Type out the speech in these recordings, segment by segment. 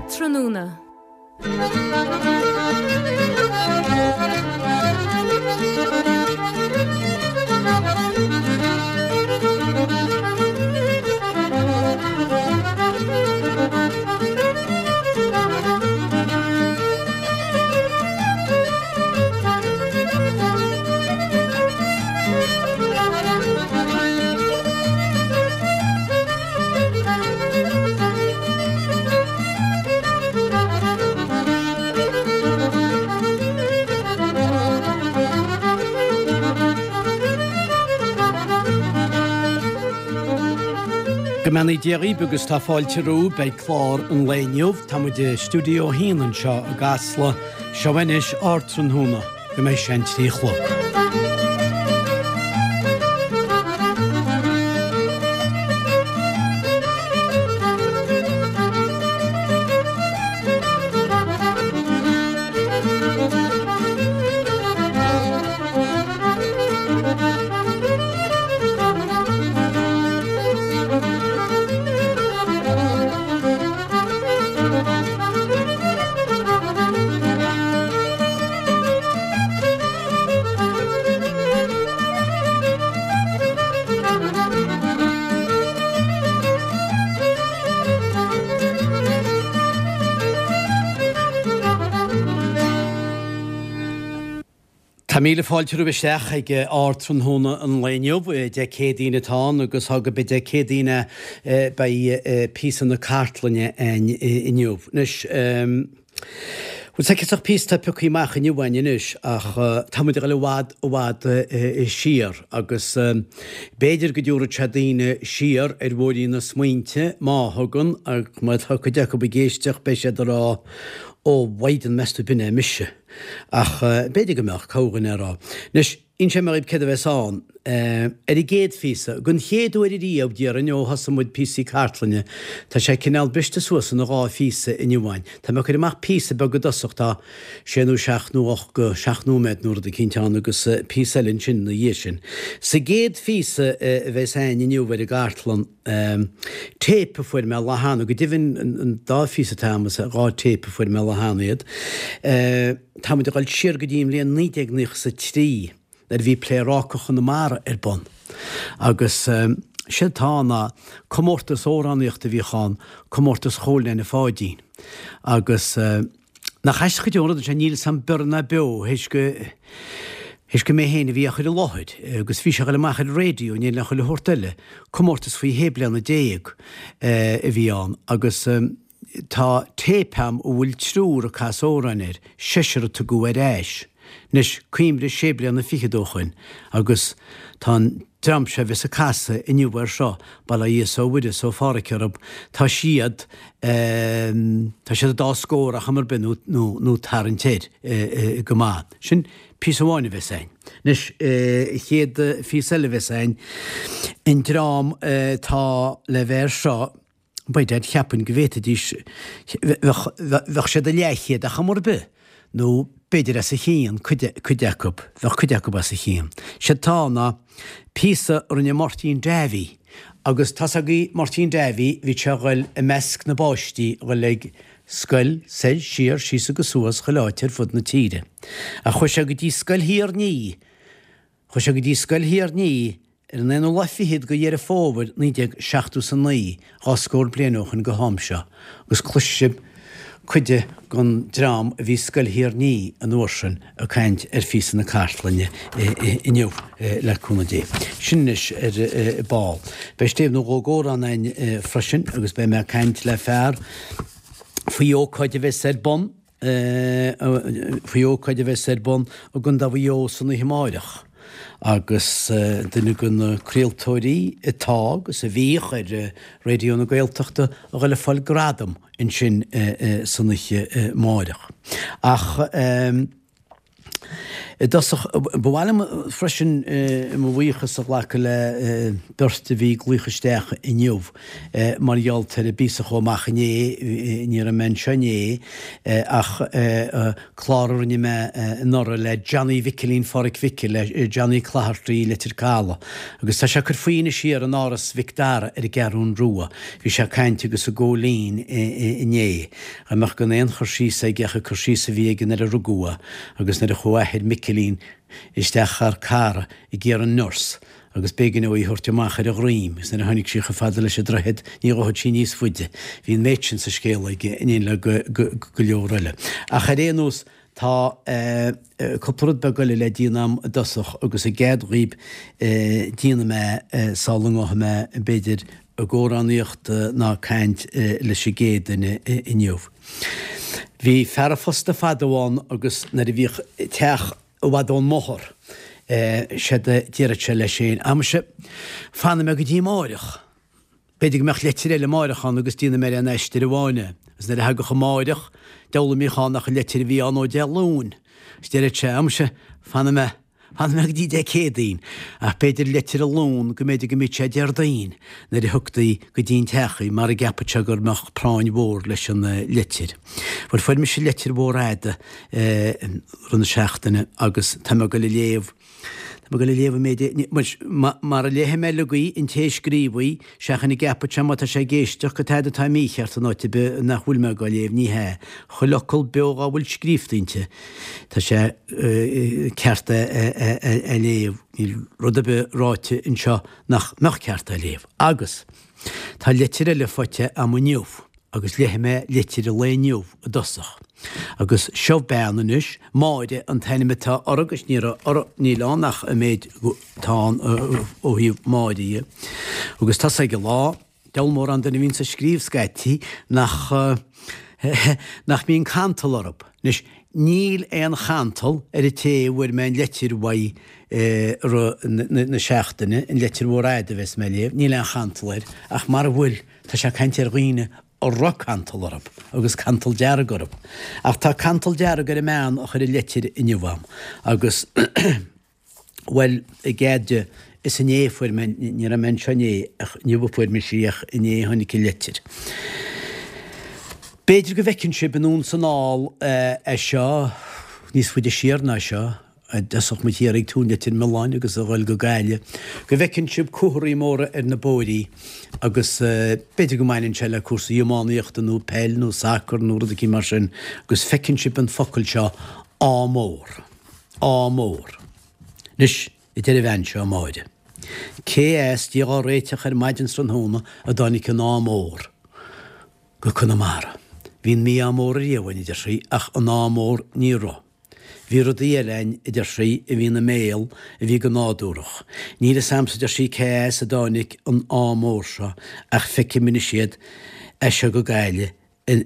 Ardtráthnóna. Go mbeannaí Dia dhaoibh agus tá fáilte romhaibh beidh clár an lae inniu. Tá muid i Stiúideo 1 anseo i gCasla. Seo anois Ardtráthnóna go mbeidh sé an 3 a chlog. Tá míle fáilte romhaibh isteach ag Ardtráthnóna an lae inniu. Dé Céadaoin atá ann agus tá gurb é Dé Céadaoin é beidh píosa na cartlainne againn inniu. Anois, bhuel, tá ciontach píosa atá pioctha amach inniu againn anois ach tá muid ag dul i bhfad, i bhfad siar agus b'fhéidir go dtabharfadh sé daoine siar ar bhóithrín na smaointe, má thugann, ach má tá cuid acu ag éisteacht beidh siad ag rá, Ó, mhaighdean, meas tú b'in é mise. Ach b'fhéidir go mbeadh, corrdhuine a rá. Anois, inseoidh mé dhaoibh céard a bheas ann. Ar an gcéad phíosa, den chéad uair ariamh, déarfainn, ó thosaigh muid píosaí cartlainne, tá sé cineál briste suas ina dhá phíosa inniu againn. Tá mé ag cur amach píosa beag i dtosach, tá sé nó seacht nó ocht go seacht nóiméad nó rud eicínt ann agus píosa eile ansin ina dhiaidh sin. Sa gcéad phíosa a bheas againn inniu ar an gcartlann, Téip a fuair mé lá cheana, go deimhin an dá phíosa atá agam is dhá téip a fuair mé lá cheana iad. Tá muid ag dul siar go dtí an bhliain 1993 nuair a bhí Pléaráca Chonamara ar bun. Agus séard atá ann ná comórtas amhránaíochta a bhíodh ann, comórtas Chóil Neaine Pháidín. Agus. Nach aisteach go deo an rud é sin, níl 'fhios a'm bior ná beo théis go, théis gur mé féin a bhí á chur i láthair agus bhí sé ag dul amach ar an raidió in éindí le chuile shórt eile, comórtas faoi shé bliana déag a bhí ann agus tá téip a'm a bhfuil triúr ag casadh amhráin air, seisear a tugadh ar ais. Anois, cuimhnigh sé bliana fichead ó shoin agus tá an dream seo a bheas ag casadh inniu air seo, bail ó Dhia 's ó Mhuire 's ó Phádhraic orthu, tá siad, tá siad an dá scór ar chuma ar bith nó, nó, nó tarraingt air go maith. Sin píosa amháin a bheas a'inn. Anois, chéad phíosa eile a bheas a'inn, an dream atá le bheith air seo, By dad, cheapfainn go bhféadfaidís, bheadh siad a leathchéad ar chuma ar bith, nó b'fhéidir as a chionn, cuid, cuid acu, bheadh cuid acu as a chionn. Séard atá ann ná píosa a rinne Máirtín Davy, agus tá's agaibh Máirtín Davy, bhí sé a ghoil i measc na bpáistí a ghoil ag scoil, soir, siar, síos agus suas, chuile áit ar fud na tíre. Ach chuaigh sé go dtí Scoil Thír an Fhia, Chuaigh sé go dtí Scoil Thír an Fhia ar an aonú lá fichead de Dheireadh Fómhair 1979, dhá scór bliain ó shoin go ham seo, agus cloisfidh sibh cuid den dream a bhí i Scoil Thír an Fhia an uair sin ag caint ar phíosa na cartlainne inniu, le cúnamh Dé. Sin anois ar ball. Beidh stéibh nó dhó d'amhrán againn freisin agus beidh mé ag caint le fear faoi ócáid a bheas ar bun faoi ócáid a bheas ar bun i gContae Mhaigh Eo san oíche amáireach agus duine de na craoltóirí atá agus a bhíodh ar Raidió na Gaeltachta a dhul ag fáil gradam ansin san oíche amáireach. Ach. I dtosach, ba mhaith liom freisin mo bhuíochas a ghlacadh le beirt a bhí ag glaoch isteach inniu mar gheall ar an bpíosa a chuaigh amach inné, ní raibh mé anseo inné ach clár a rinne mé anuraidh le Johnny Mhicilín Pháraic Mhicil, le Johnny Clogherty Leitir Caladh agus tá sé ag cur faoi anois thiar in Áras Mhic Dara ar an gCeathrún Rua. Bhí sé ag caint agus ag gabháil fhoinn inné. Dá mbeadh gan aon chur síos aige ach an cur síos a bhí aige nuair a rugadh é agus nuair a chuaigh athair Mhicilín isteach thar cara ag iarraidh an nurse agus b'éigean dó í a thabhairt amach ar a dhroim agus nuair a tháinig sí chomh fada leis an droichead ní ghabhfadh sí níos faide. Bhí an méid sin sa scéal aige in éineacht le go leor eile. Ach ar aon nós tá cúpla rud beag eile le déanamh a'm i dtosach agus an gcead dhaoib déanfaidh mé sula ngabhfaidh mé b'fhéidir ag amhránaíocht ná caint leis an gcéad duine inniu. Bhí fear a phosta fadó ann agus nuair a bhíodh teach i bhfad ón mbóthar, séard a déarfadh sé leis féin, Amuise, fanfaidh mé go dtí amáireach. B'fhéidir go mbeadh leitir eile amáireach ann agus déanfaidh mé ar aon aistear amháin é. Agus nuair a thagadh amáireach, deabhal a mbíodh ann ach an leitir a bhí ann ó Dé Luain. Agus déarfadh sé, Amuise, fanfaidh mé. Fanfaidh mé go dtí Dé Céadaoin, ach b'fhéidir leitir an Luan go mb'fhéidir go mbíodh sé Déardaoin nuair a thioctaí go dtí an teach í, mar a gceapfadh sé gur mbeadh práinn mhór leis an leitir. Bhuel, fuair mise leitir mhór fhada rith na seachtaine agus tá mé ag goil a léamh, tá mé ag goil a léamh an méid, mar a léifidh mé uilig í, an té a scríobh í, Seachain a gceapfadh sé má tá sé ag éisteacht go tada atá mícheart in áit ar bith nach bhfuil mé dhá léamh, ní hea. Chuile fhocal beo dhá bhfuil scríobhta inti, tá sé ceart é a léamh. Níl rud ar bith ráite anseo nach mbeadh ceart é a léamh. Agus tá leitir eile faighte a'm inniu. Agus léifidh mé leitir an lae inniu i dtosach. Agus seo bean anois, Máire an t-ainm atá uirthi agus ní raibh, níl ann ach an méid atá ann ó thaobh Máire dhe. Agus tá's ag an lá, deabhal mórán duine a bhíonns ag scríobh scaití nach, nach mbíonn cantal orthu. Anois, níl aon chantal ar an té a bhfuair mé an leitir uaidh i rith na seachtaine, an leitir mhór fhada a bheas mé a léamh, níl aon chantal air, ach mara bhfuil, Tá sé ag caint ar dhaoine a raibh cantal orthu, agus cantal dearg orthu. Ach tá cantal dearg ar an mbean a chuir an leitir inniu a'm, agus, bhuel, i gcead di, is inné a fuair mé, ní raibh mé anseo inné, ach inniu a fuair mise í, ach inné a tháinig an leitir. B'fhéidir go bhfeiceann sibh anonn 's anall é seo, níos faide siar ná seo, I dtosach mo thiar ag Tóin Leitir Mealláin agus a ghoil go Gaillimh, go bhfeiceann sibh comharthaí móra ar na bóithrí agus b'fhéidir go mbaineann sé le cúrsaí iománaíochta nó peil nó sacar nó rud eicínt mar sin agus feiceann sibh an focal seo Ádh Mór. Ádh Mór. Anois, a deir an bhean seo, Máire, cé as, Dia dhá réiteach ar maidin 's tráthnóna a dtáinig an Ádh Mór go Conamara. Bhí an mí-ádh mór ariamh againn, a deir sí, ach an Ádh Mór ní raibh. Bhí rudaí eile a'inn, a deir sí, a bhí ina mbéal, a bhí go nádúrach. Níl fhios a'msa, a deir sí, cé as a dtáinig an ádh mór seo ach feicim anois iad as seo go Gaillimh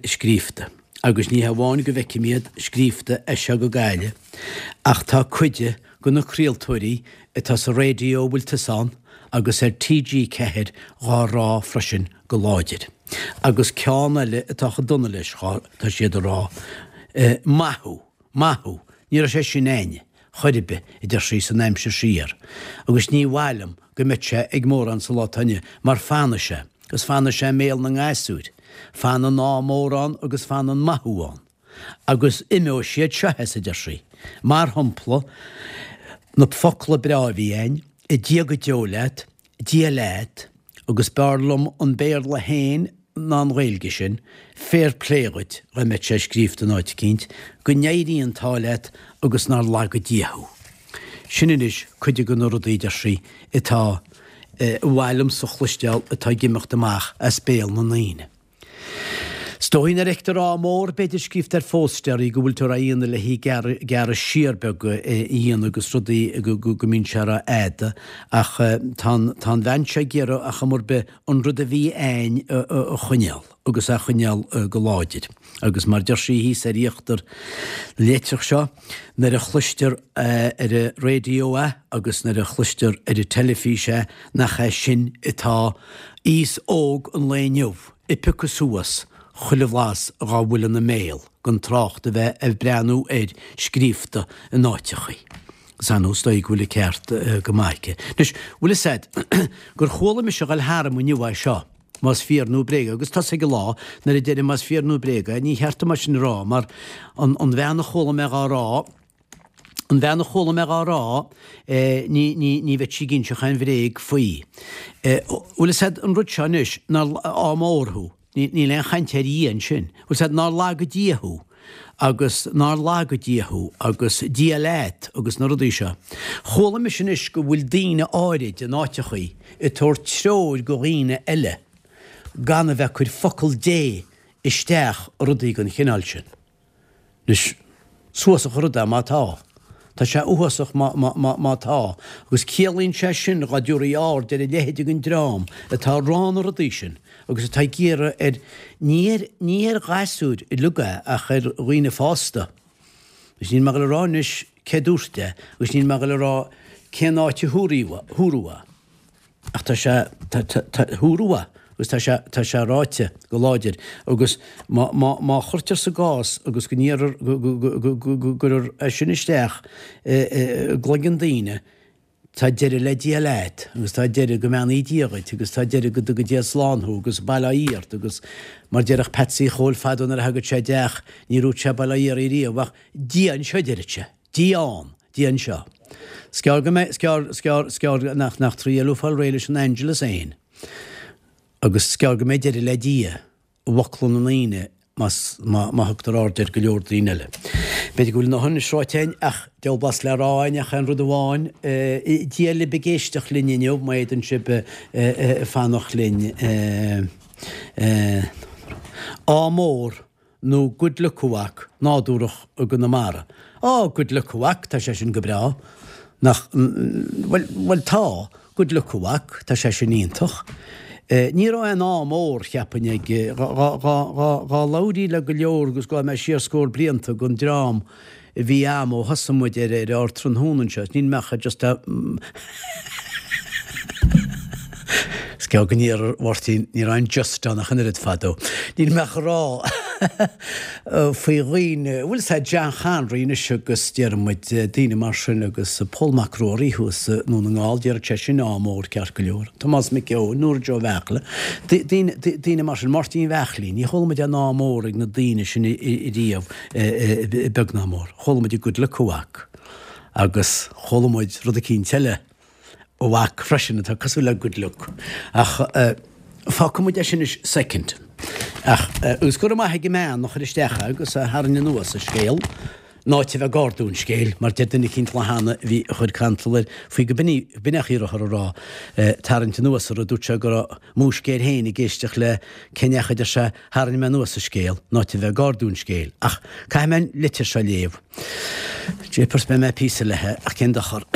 scríobhta. Agus ní hamháin go bhfeicim iad scríobhta as seo go Gaillimh ach tá cuid de na craoltóirí atá sa raidió a bhfuil tusa ann agus ar TG4 dhá rá freisin go láidir. Agus ceann eile atá chomh dona leis, tá siad a rá, Maith thú! Maith thú! Ní raibh sé sin a'inne, chor ar bith, a deir sí, san aimsir siar. Agus ní mhaith liom go mbeadh sé ag mórán sa lá atá inniu, mar fanfaidh sé, agus fanfaidh sé i mbéal na ngasúir. Fanfaidh an ádh mór ann agus fanfaidh an maith thú ann. Agus imeoidh siad seo as, a deir sí. Mar shampla, na focla breá a bhí a'inn, Dia go deo leat, Dia leat, agus b'fhearr liom an Béarla féin ná an Ghaeilge sin, fair play dhuit, dá mbeadh sé scríobhta in áit eicínt, go n-éirí an t-ádh leat agus nár laga Dia thú. Sin anois cuid de na rudaí, deir sí, atá, a mhaith liomsa a chloisteáil atá ag imeacht amach as béal na ndaoine. Is dóigh nuair a fheictear ádh mór, b'fhéidir, scríobhta ar phóstaerí go bhfuil tú á dhéanamh le hí gearradh siar beag a dhéanamh agus rudaí go mbíonn sé rófhada ach tá an bhean seo ag iarraidh ar chuma ar bith an rud a bhí a'ainn a choinneáil agus a choinneáil go láidir. Agus mar deir sí thíos ar íochtar na litreach seo, nuair a chloistear ar an raidió é agus nuair a chloistear ar an teilifís é nach é sin atá aos óg an lae inniu ag piocadh suas. chuile bhlas dhá bhfuil ina mbéal, gan trácht a bheith ag breathnú air scríobhta in áiteachaí. Agus ar ndóigh is dóigh go bhfuil an ceart go maith aici. Anois, bhfuil fhios a'd gur chuala mise a ghoil tharam inniu é seo, más fíor nó bréag é, agus tá's ag an lá nuair a deirim más fíor nó bréag é, ní cheart dom é sin a rá, mar an bhean a chuala mé dhá rá, An bhean a chuala mé dhá rá, ní, ní, ní bheadh sí ag inseacht aon bhréag faoi. Bhfuil fhios a'd an rud seo anois, nár, ádh mór thú, ní, níl aon chaint ar Dhia ansin. Bhfuil fhios a'd nár laga Dia thú, agus nár laga Dia thú, agus Dia leat, agus na rudaí seo. Chuala mise anois go bhfuil daoine áirid in áiteachaí ag tabhairt treoir go dhaoine eile gan a bheith ag cur focal Dé isteach i rudaí den chineál sin. Anois, is uafásach an rud é má tá. Tá sé uafásach má, má, má, má tá. Agus ciallaíonn sé sin dhá dtabharfaí aird ar a leithéid den dream atá ag rá na rudaí sin agus atá ag iarraidh ar, ní ar, ní ar ghasúir uilig é ach ar dhaoine fásta. Agus níl mé ag dul a rá anois cé dúirt é agus níl mé ag dul a rá cén áit a húradh é. Ach tá sé, tá, tá, tá, húradh é agus tá sé, tá sé ráite go láidir agus má, má, má chuirtear sa gcás agus go n-iarrar, go, go, go, go, go, go gcuirtear é sin isteach i, i, i gcloigeann daoine, tá deireadh le Dia leat agus tá deireadh go mbeannaí Dia dhuit agus tá deireadh go dtuga Dia slán thú agus bail ó Dhia ort agus mar déarfadh Patsy Chóil fadó nuair a thagadh sé i dteach ní dúirt sé bail ó Dhia oraibh riamh ach Dia anseo a deireadh sé. Dia ann, Dia anseo. 'S gearr go mbeidh, 's gearr, 's gearr, 's gearr nach, nach trí eile fáil réidh leis an Angelus fhéin. Agus 's gearr go mbeidh deireadh le Dia i bhfocla na ndaoine más, má, má thugtar aird ar go leor daoine eile. B'fhéidir go bhfuil a ndóthain anois ráite againn ach diabhal blas le rá againn ach aon rud amháin, Dia libh ag éisteacht linn inniu, má fhéadann sibh fanacht linn. Ádh mór. nó good luck a mhac, nádúrach i gConamara. Á, good luck a mhac, tá sé sin go breá. Nach, bhuel, bhuel tá, good luck a mhac, tá sé sin iontach. Ní raibh aon ádh mór, cheapfainn, ag, dhá, dhá, dhá, dhá, dhá labhraí le go leor agus gabhfaidh mé siar scór blianta den dream a bhí a'm ó thosaigh muid ar ar Ardtráthnóna anseo, níl mé ach just a Is gearr go n-iarr Mháirtín, ní raibh aon just ann ach an oiread fadó. Níl mé ach a rá faoi dhaoine, bhfuil 'fhios a'd John Conroy anois agus déarfaidh muid daoine mar sin agus Pól Mac Ruairí thuas i nDún na nGall, déarfadh sé sin ádh mór ceart go leor. Tomás Mac Eoin, Nóra Joe Bheartla, daoine, daoine mar sin, Máirtín Bheachlín, ní chuala muid aon ádh mór ag na daoine sin riamh. Beag ná mór. Chuala muid good luck a mhac agus chuala muid rud eicínt eile a mhac freisin atá cosúil le good luck. Ach fágfaidh muid é sin anois soicind. Ach agus go raibh maith ag an mbean a chuir isteach é agus a tharraing anuas an scéal, in áit a bheith ag ardú an scéil, mar deir duine eicínt lá cheana a bhí a chuir cantal air faoi go b'in í, b'in é an chaoi a raibh a rá, tarraingt anuas an rud, dúirt sé go raibh múisc air féin ag éisteacht le cén chaoi a deir sé Tharraing mé anuas an scéal, in áit a bheith ag ardú an scéil. Ach caithfidh mé an litir seo a léamh. Jeepers, beidh mé píosa léithe, ach cén dochar.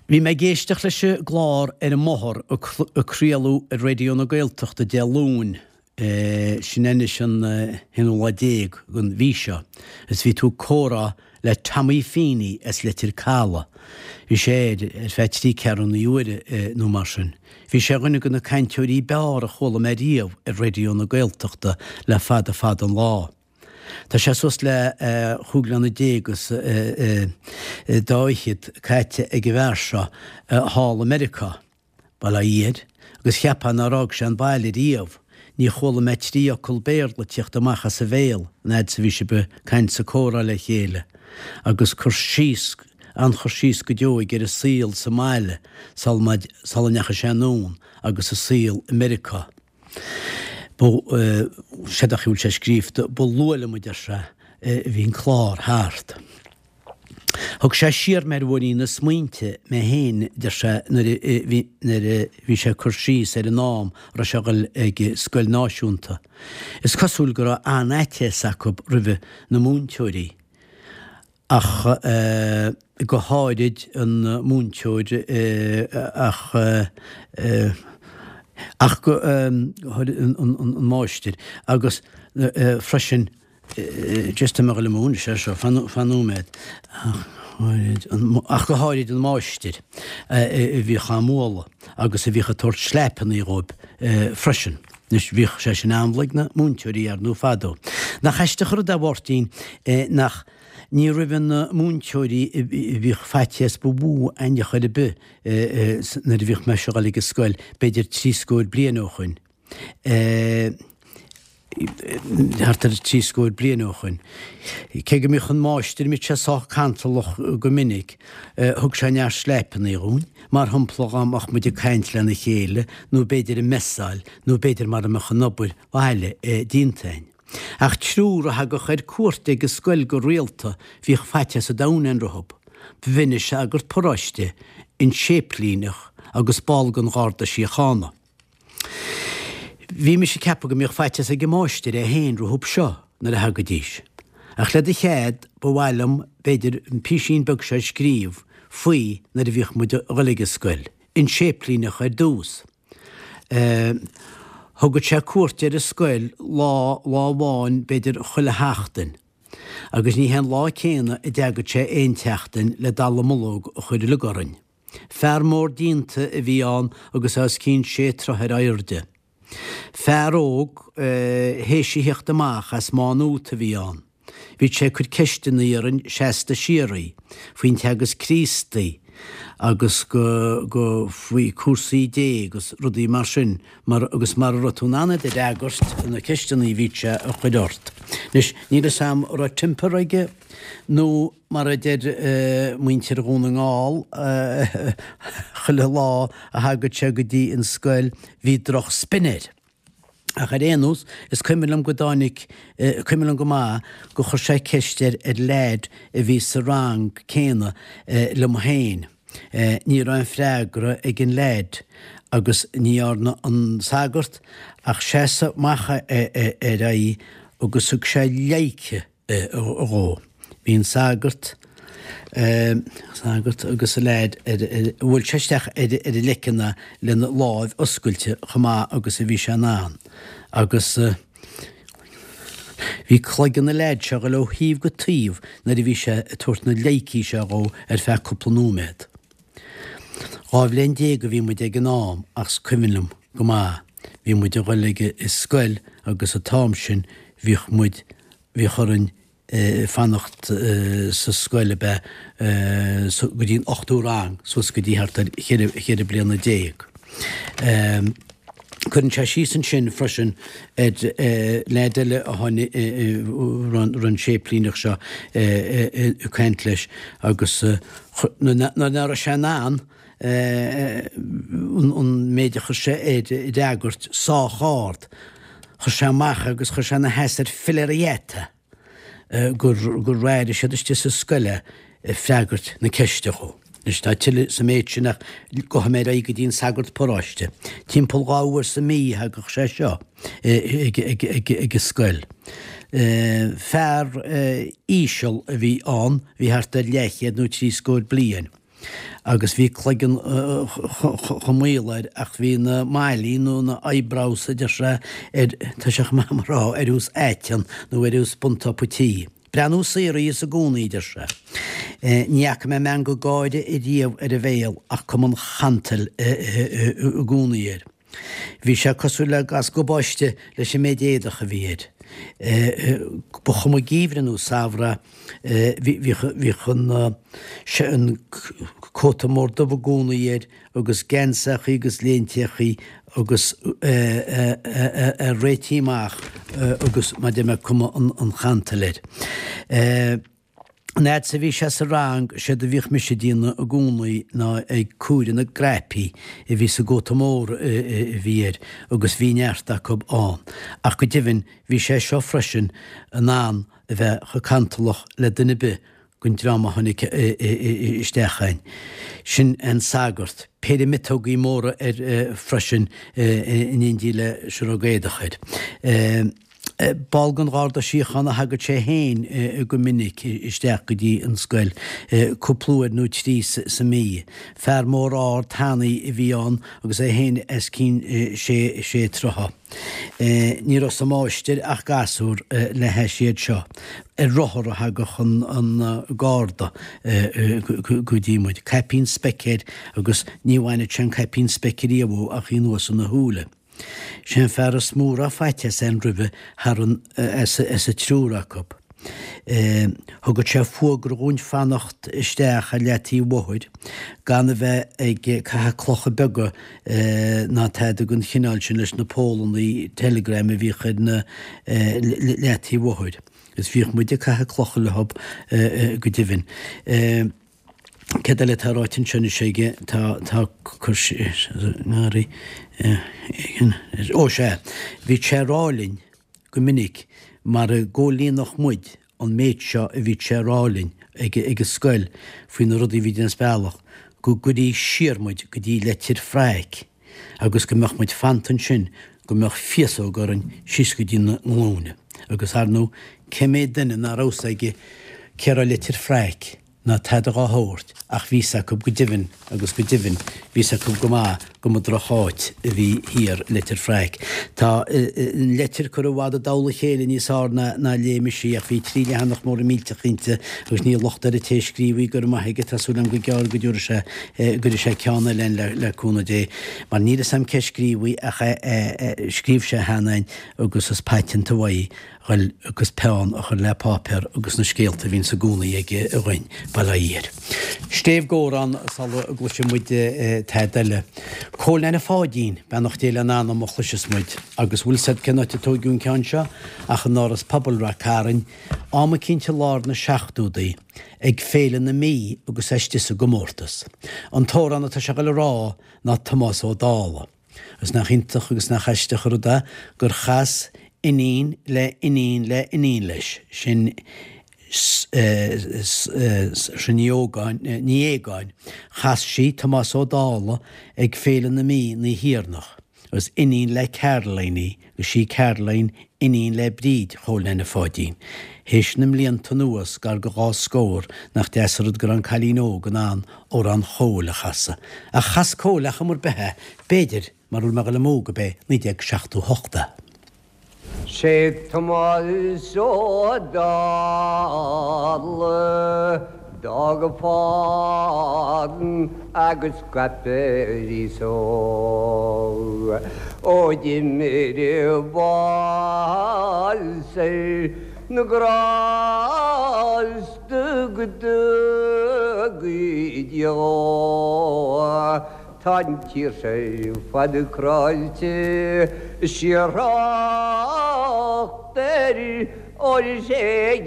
Bhí mé ag éisteacht leis an gclár ar an mbóthar a craoladh ar Raidió na Gaeltachta Dé Luain, sin anois an haonú lá déag den mhí seo, agus bhí tú ag comhrá le Tommy Feeney as Leitir Caladh. Bhí sé air ar feadh trí ceathrúna uaire nó mar sin. Bhí sé ar dhuine de na cainteoirí b'fhearr a chuala mé riamh ar Raidió na Gaeltachta le fada fada an lá. Tá sé suas le chúig bhliana déag is dá fhichead caite ag an bhfear seo thall i Meiriceá. Bail ó Dhia air, agus cheapfá nár fhág sé an baile riamh. Ní chuala mé trí fhocal Béarla ag tíocht amach as a bhéal an fhad 's a bhí sibh ag caint 's ag comhrá le chéile, agus cur síos, an-chur síos go deo aige ar an saol sa mbaile sula sula ndeachaigh sé anonn agus an saol i Meiriceá. Ba, séard a bhfuil sé scríobhta, ba luath liom, a deir sé, a bhí an clár thart. Thug sé siar mé ar bhóithrín na smaointe mé féin, deir sé, nuair a bhí nuair a bhí sé ag cur síos ar an am a raibh sé ag dul ag scoil náisiúnta. Is cosúil go raibh an-fhaitíos acu roimhe na múinteoirí, ach go háirid an múinteoir ach ach go háirid an máistir agus freisin Just tá mé ag dul amú anois air seo, fan nóiméad. Ach go háirid an máistir a bhíodh á mbualadh agus a bhíodh ag tabhairt sleipeanna dhóibh freisin. Anois, bhíodh sé sin amhlaidh ag na múinteoirí, ar ndóigh, fadó. Nach aisteach an rud é, a Mháirtín, nach, ní roimhe na múinteoirí a bhíodh faitíos ba mhó a'inn ar chor ar bith nuair a bhíodh mise a dhul ag an scoil, b'fhéidir scór bliain ó shoin. Thart ar thrí scór bliain ó shoin. Cé go mbíodh an máistir, mbíodh sé sách cantalach go minic, thug sé neart sleipeanna dhúinn, mar shampla dhá mbeadh muid ag caint lena chéile nó b'fhéidir ag messáil nó b'fhéidir mara mbeadh an obair bhaile déanta a'inn. Ach triúr a thagadh ar cuairt ag an scoil go rialta, bhíodh faitíos an domhain a'inn rompu. B'in an sagart paróiste, an séiplíneach agus ball den Gharda Síochána. Bhí mise ag ceapadh go mbíodh faitíos ag an máistir é féin rompu seo nuair a thagaidís. Ach le do chead, ba mhaith liom, b'fhéidir, an písín beag seo a scríobh faoi nuair a bhíodh muid a dhul ag an scoil. An séiplíneach ar dtús. Thugadh sé cuairt ar an scoil lá, lá amháin b'fhéidir chuile sheachtain. Agus ní hé an lá céanna a dteagadh sé aon tseachtain le dallamullóg a chur uilig orainn. Fear mór díonta a bhí ann agus é os cionn sé troithe ar airde. Fear óg théis a theacht amach as Má Nuat a bhí ann. Bhíodh sé ag cur ceisteanna orainn seasta síoraí, faoin Teagasc Críostaí agus go, go, faoi cúrsaí Dé agus rudaí mar sin mar, agus mara raibh tú in ann iad a fhreagairt, na ceisteanna a bhíodh sé a chur ort. Anois, níl fhios a'm an raibh temper aige nó Mar a deir muintir Dhún na nGall, chuile lá a thagadh sé go dtí an scoil bhí droch spin air. Ach ar aon nós, is cuimhin liom go dtáinig, cuimhin liom go maith gur chuir sé ceist ar ar leaid a bhí sa rang céanna liom féin. Ní raibh aon freagra ag an leaid agus ní dhearna an sagart ach seasamh amach ar a aghaidh agus thug sé pleidhce dhó. Bhí an sagart, sagart agus an leaid ar, bhuail sé isteach ar an leiceann é lena láimh oscailte chomh maith agus a bhí sé in ann agus bhí cloigeann an leaid seo ag dul ó thaobh go taobh nuair a bhí sé ag tabhairt na pleidhcí seo dhó ar feadh cúpla nóiméad. 12 bhliain a bhí muid ag an am ach is cuimhin liom go maith, bhí muid a dhul ag an scoil agus an t-am sin bhíodh muid, bhíodh orainn fanacht sa scoil ab ea go dtí an ochtú rang, suas go dtí thart ar cheithre bliana déag. Cuireann sé síos ansin freisin ar leaid eile a tháinig, raibh an séiplíneach seo ag caint leis agus nuair nach raibh sé in ann an méid a chuir sé air a fhreagairt sách ard, chuir sé amach agus chuir sé ina sheasamh ar philéar a gheata. gur gur airigh siad istigh sa scoil é ag freagairt na ceiste dhó. Anois tá tuilleadh sa méid sin ach gabhfaidh mé ar aghaidh go dtí an sagart paróiste. Timpeall 2 uair sa mí a thagadh sé seo ag an scoil. Fear íseal a bhí ann, bhí thart ar leathchéad nó scór bliain. agus bhí cloigeann chomh maol air ach bhí na maillí nó na eyebrows a deir sé ar, tá sé chomh maith mar rá, ar nós aiteann nó ar nós buntopa tí. Breathnú saor a bhíos i gcónaí, a deir sé. Ní fhaca mé meangadh gáire ariamh ar a bhéal ach cuma an chantail i gcónaí air. Bhí sé cosúil le gas gabáiste leis an méid éadach a bhí air. Ba chuma geimhreadh nó samhradh, bhíodh an cóta mór dubh i gcónaí air agus geansachaí agus léinteachaí agus é réitithe amach agus mar a deir mé cuma an chantail air. An fhad 's a bhí sé sa rang, séard a bhíodh mise ag déanamh i gcónaí ná ag comhaireamh na gcnaipí a bhí sa gcóta mór a bhí air agus bhí neart acu ann. Ach go deimhin bhí sé seo freisin in ann a bheith chomh cantalach le duine ar bith den dream a tháinig isteach ann. Sin an sagart. Péire miotógaí móra air freisin in éindí le siorróg éadach air. Ball den Gharda Síochána a thagadh sé féin go minic isteach go dtí an scoil, cúpla uair nó trí sa mí. Fear mór ard tanaí a bhí ann agus é féin os cionn sé sé troithe. Ní raibh sa máistir ach gasúr le hais iad seo. Ar rothar a thagadh an Garda go dtí muid. Caipín speic air agus ní bhainfeadh sé an caipín speic ariamh dhó ach í anuas ina shúile. Sé an fear is mó a raibh faitíos ann roimhe thar an as an triúr acu. Thugadh sé fuagra dhúinn fanacht isteach ar leataobh an bhóthair gan a bheith ag caitheamh clocha beaga ná tada den chineál sin leis na pólannaí teileagram a bhíodh ar na leataobh an bhóthair. Agus bhíodh muid ag caitheamh clocha leo go deimhin. Céard eile atá ráite anseo anois aige? Tá, tá cur síos, ngarraí, ó sea, bhí sé ag rá linn go minic mara gcomhlíonfadh muid an méid seo a bhí sé ag rá linn ag an scoil faoi na rudaí a bhí déanamh as bealach, go gcuirí siar muid go dtí Leitir Fraic agus go mbeadh muid fanta ansin go mbeadh féasóg orainn síos go dtí na nglúine. Agus ar ndóigh, cé mhéad duine nach raibh fhios aige cé raibh Leitir Fraic? ná tada dhá shórt, ach bhí 's acu go deimhin, agus go deimhin, bhí 's acu go maith go mba droch-áit a bhí thiar i Leitir Fraic. Tá an leitir curtha i bhfad i dtoll a chéile níos fhearr ná ná léigh mise í, ach bhí trí leathanach móra millteach inti, agus níl locht ar an té a scríobh í, go raibh maith aige, tá súil agam go gearr go dtabharfaidh sé, go gcuirfidh sé ceann eile ann le, le cúnamh Dé, mar níl 'fhios a'm cé a scríobh í, ach scríobh sé cheana ann, agus is paiteanta uaidh ghoil agus peann a chur le páipéar agus na scéalta a bhíonns i gcónaí aige againn, bail ó Dhia air. Stéibh gcomhrán sula gcloisfidh muid tada eile. Cóil Neaine Pháidín, beannacht Dé lena anam a chloisfeas muid. Agus bhfuil 's a'd cén áit a tóigeadh an ceann seo ach in Áras Pobail Rath Cairn, am eicínt i lár na seachtódaí, ag Féile na Mí agus é istigh sa gcomórtas. An t-amhrán atá sé a ghoil a rá ná Tomás Ó Dálaigh. Agus nach iontach agus nach aisteach an rud é gur chas iníon le iníon le iníon leis, sin Saoirse Ní Ógáin, Ní Aogáin, chas sí Tomás Ó Dálaigh ag Féile na Mí an oíche dheireanach, agus iníon le Caroline í, agus sí Caroline iníon le Bríd Chóil Neaine Pháidín. Théis na mblianta anuas, gar go dhá scór, nach deas an rud go raibh an cailín óg in ann amhrán Chóil a chasadh. Ach chas Cóil ar chuma ar bith é, b'fhéidir, mara bhfuil mé ag dul amú, gurb é 1978 é. Sé Tomás Ó Dálaigh d'fhág a fán agus scaip ar aos óg ó d'imir bás ar na grásta go dtugaí Dia dhó. Tá an tír seo ar fad cráite síor-thrácht air Óir is é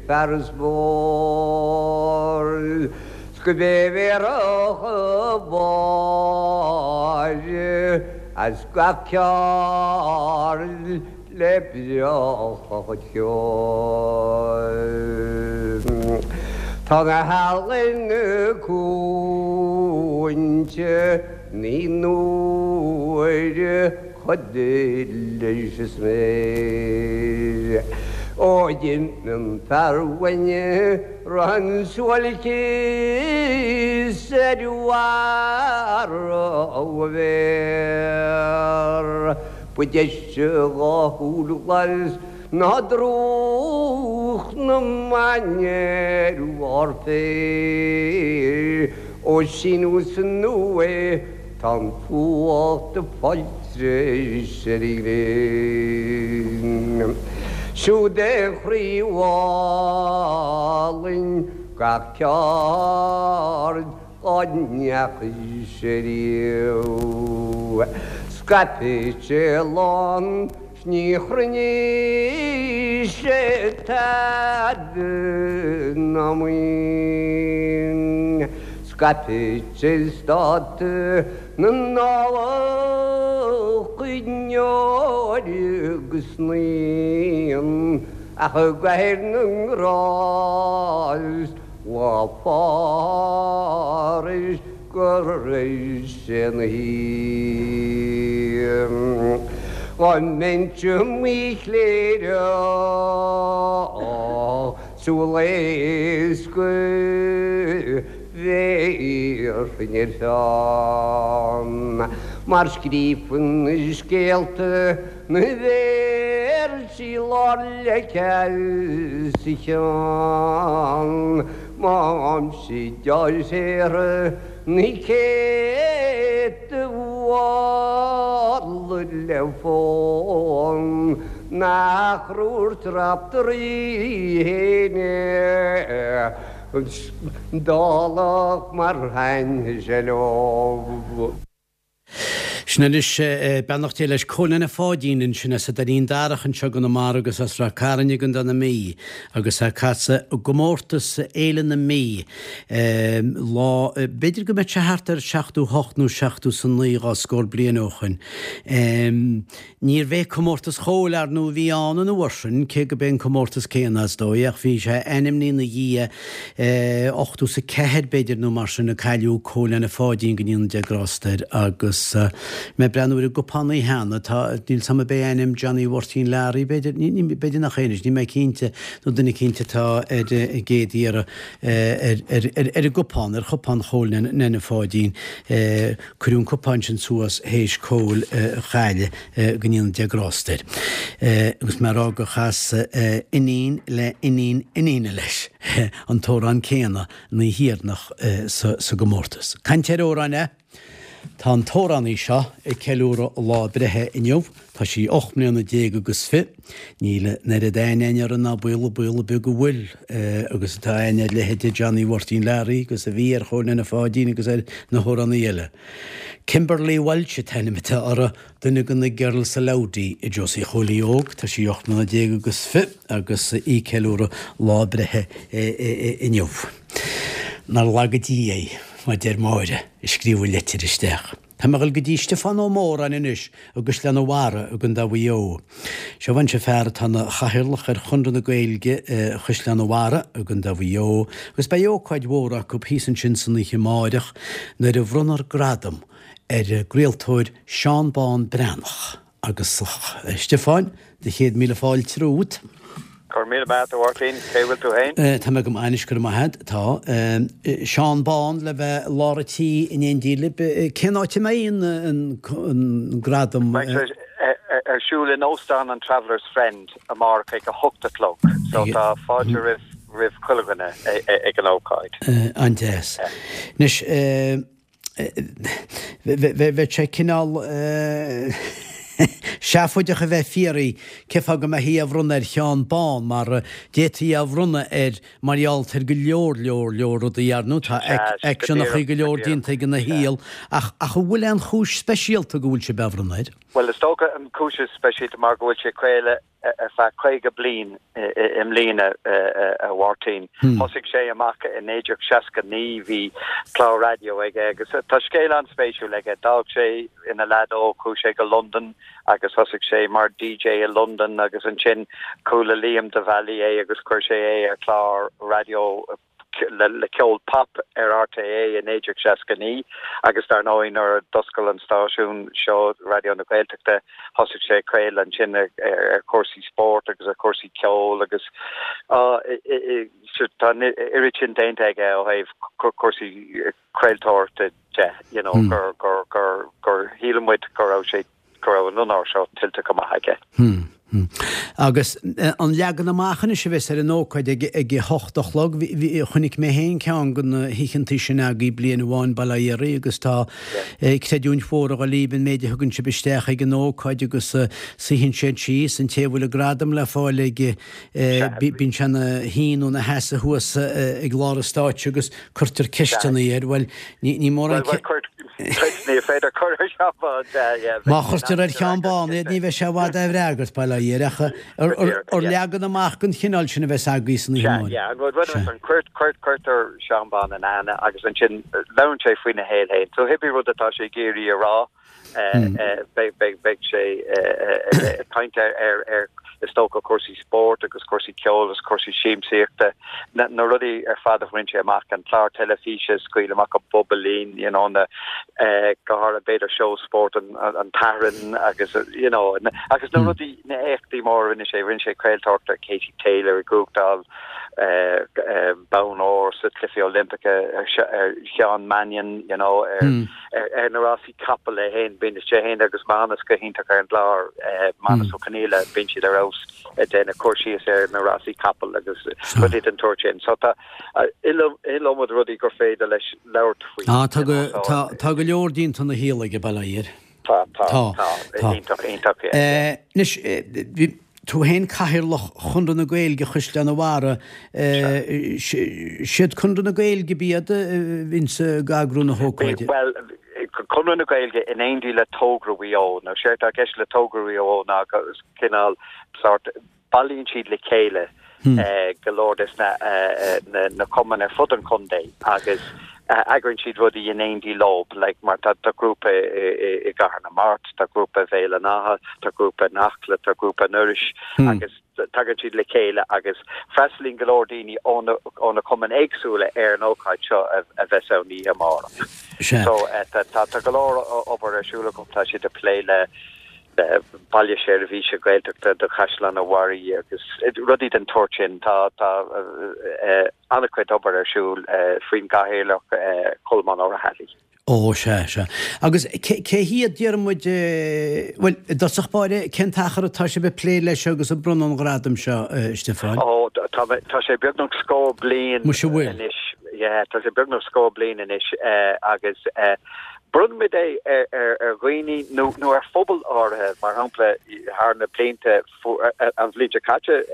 fear is mór 's go b'é bhéarfadh a bharr as gach ceard le breacadh a chuid ceoil. Tá na healaíona cúinte naoi n-uaire Chuid leis is mé ó d'imigh an fear uainn raibh an suáilceas ar bharr a mhéar. Ba deise dhá shúil ghlas ná drúcht na mban ar bharr féir ó síneadh san uaigh Tá an fuacht ag fáil treis ar an ghréin. Siúd é a chroí álainn gach ceard dhá ndeachaigh sé riamh. Scaipfidh sé lán 's ní chruinneoidh sé tada ná maoin. Scaipfidh sé stát na nDálach i ndeoir agus naíon, ach i gcathaoir na nGrást lá fárais go raibh sé 'na shuí. Dá mbeinnse i mo chléireach súil éasca bhéarfainn ar pheann, mar scríofainn na scéalta na véarsaí lár leice sa cheann. Má aimsigh deis shaothar na céadta bhfad. le fonn nach raibh Raiftearaí fhéin dálach mar sheinnseilg. Sin anois, beannacht Dé leis, Cóil Nene Pháidín ansin as an Doirín Darach anseo i gConamara agus as Ráth Cairn i gContae na Mí agus é ag casadh i gcomórtas Fhéile na Mí lá, b'fhéidir go mbeadh sé thart ar 78 nó 79 dhá scór bliain ó shoin. Níorbh é Comórtas Chóil, ar ndóigh, a bhí ann an uair sin, cé go b'é an comórtas céanna, is dóigh, ach bhí sé ainmnithe ina dhiaidh, 84, b'fhéidir, nó mar sin, a cailleadh Cóil Nene Pháidín, go ndéana Dia grásta air, agus mé ag breathnú ar an gcupán cheana, tá, níl 's a'm ab é ainm Johnny Mháirtín Learaí, b'fhéidir, ní, b'fhéidir nach é anois, níl mé cinnte, nó duine eicínt atá ar an gcéad iarraidh ar, ar, ar, ar an gcupán, ar chupán Chóil Nene Pháidín. Cuireadh an cupán sin suas théis Cóil a chailleadh, go ndéana Dia grásta air. Agus mé a rá gur chas iníon le iníon iníne leis an t-amhrán céanna an oíche dheireanach sa gcomórtas. Caint ar amhráin, eh? Tá an t-amhránaí seo ag ceiliúradh a lá breithe inniu. Tá sí 18 mbliana agus fi. Níl an oiread aithne againn uirthi ná baol, baol ar bith go bhfuil agus atá aithne ar leithéide Johnny Mháirtín Learaí agus a bhí ar Chóil Nene Pháidín agus ar na hamhránaithe eile. Kimberly Walsh an t-ainm atá uirthi, duine de na Girls Aloud í Josie Chóilí Óg. Tá sí 18 mbliana agus fi agus í ag ceiliúradh lá a breithe inniu. Nár laga Dia í, mar deir Máire, a scríobh an leitir isteach. Tá mé ag dul go dtí Stiofán Ó Móráin anois i gCaisleán an Bharraigh i gContae Mhaigh Eo. Seo anseo fear atá ina chathaoirleach ar Chonradh na Gaeilge Chaisleán an Bharraigh i gContae Mhaigh Eo agus beidh ócáid mhór acu thíos ansin san oíche amáireach nuair a bhronnfar gradam ar an gcraoltóir Seán Bán Breathnach. Agus a Stiofáin, do chéad míle fáilte romhat. Go raibh míle maith agat, a Mháirtín. Cé bhfuil tú fhéin? Tá mé go maith anois, go raibh maith agat. Tá. Seán Bán le bheith i lár an tí in éindí libh. Cén áit a mbeidh an gradam? Beidh sé ar siúl in Óstán an Travellers Friend amárach ag a hocht a chlog. So tá fáilte roimh roimh chuile dhuine ag an ócáid. An-deas. Anois, Bheadh sé cineál seafóideach a bheith ag fiafraí cén fáth go mbeifí á bhronnadh ar Sheán Bán mar d'fhéadfaí é a bhronnadh air mar gheall ar go leor leor leor rudaí ar ndóigh tá aicseanachaí go leor déanta aige ina shaol ach ach an bhfuil aon chúis speisialta go bhfuil sibh á bhronnadh air? Bhuel is dócha an chúis is speisialta mar go bhfuil sé ag craoladh ar feadh 50 bliain i mbliana, a Mháirtín. Thosaigh sé amach i 1969, bhí clár raidió aige agus tá scéal an-spéisiúil aige. D'fhág sé ina leaid óg, chuaigh sé go Londain agus thosaigh sé mar DJ i Londain agus ansin chuala Liam de Bhailís é agus chuir sé é ar chlár raidió le ceol pop ar RTÉ i 1969 agus dar ndóigh nuair a d'oscail an stáisiún seo, Raidió na Gaeltachta, thosaigh sé ag craoladh ansin ar chúrsaí spóirt agus ar chúrsaí ceoil agus tá an oiread sin déanta aige ó thaobh cúrsaí craoltóireachta de, you know, gur, gur, gur, gur shíl muid go raibh sé go raibh an onóir seo tuillte go maith aige. Agus an leagan amach anois a bheas ar an ócáid ag a hocht a chlog, chonaic mé féin ceann de na hoícheantaí sin agaibh bliain amháin, bail ó Dhia oraibh, agus tá creidiúint mhór ag dul libh an méid a thugann sibh isteach ag an ócáid agus suíonn siad síos, an té a bhfuil an gradam le fáil aige, bíonn sé ina shuí nó ina sheasamh thuas ag lár an stáitse agus cuirtear ceisteanna air, bhuel, ní mórán ce. Bhuel, ní féidir cur ar Sheán Bán, yeah. Má chuirtear ar Sheán Bán iad, ní bheidh sé i bhfad á bhfreagairt, bail ó Dhia air, ach ar leagan amach den chineál sin a bheas agaibh san oíche amárach. Yeah, an rud is an cuirtear Seán Bán in aithne agus ansin labhrann sé faoina shaol féin. So cibé rud atá sé ag iarraidh a rá, Beidh sé ag caint ar, is dócha, cúrsaí spóirt agus cúrsaí ceoil agus cúrsaí siamsaíochta, na rudaí ar fad a bhain sé amach, an clár teilifíse, Scaoil Amach an Bobailín, you know, na, go háirithe b'fhéidir seó spóirt an tSathairn agus, you know, agus na rudaí, na éachtaí móra a rinne sé, rinne sé craoltóireacht ar Katie Taylor ag buachtáil bonn óir sa Chluichí Oilimpeacha, ar Sheán Mannion, you know, ar. ar na rásaí capall é féin, bíonn sé féin agus Manus go hiontach ar an gclár, Manus Ó Conghaile, bíonn siad ar fheabhas ag déanamh cur síos ar na rásaí capall agus rudaí den tsórt sin. So tá iliomad rudaí gur féidir leis labhairt faoi. Tá go leor déanta ina shaol aige, bail ó Dhia air. Tá, tá, tá. Tá. Iontach, iontach, yeah. Anois, bhí tú féin Cathaoirleach Chonradh na Gaeilge Chaisleán an Bharraigh. Siad Conradh na Gaeilge ab iad a bhíonns ag eagrú na hócáide? Bhuel, Conradh na Gaeilge in éindí le Togra Mhaigh Eo. Now, séard atá i gceist le Togra Mhaigh Eo ná cineál sórt bailíonn siad le chéile go leor des na cumainn ar fud an chontae agus eagraíonn siad rudaí in éindí leo, like mar tá grúpa i gCathair na Mart, tá grúpa i Bhéal an Átha, tá grúpa in Acla, tá grúpa in Iorrais agus tagann siad le chéile agus freastalaíonn go leor daoine ó na ó na cumainn éagsúla ar an ócáid seo a bheas ann oíche amárach. So tá go leor obair ar siúl acu, tá siad ag plé le Baile Seirbhíse Gaeltachta do Chaisleán an Bharraigh agus rudaí den tsórt sin. Tá an-chuid obair ar siúl faoin gCathaoirleach Colmán Ó Raghallaigh. Ó, sea, sea. Agus cé hiad, Diarmuid, bhuel, i dtosach báire, cén t-achar atá sibh ag plé leis seo agus ag bronnadh an ghradaim seo, a Stiofáin? Ó, tá sé beagnach scór bliain Muise bhfuil. anois. Yeah, tá sé beagnach scór bliain anois agus Bronnfaimid é ar dhaoine nó ar phobail áirithe, mar shampla, thar na blianta, an bhliain seo caite,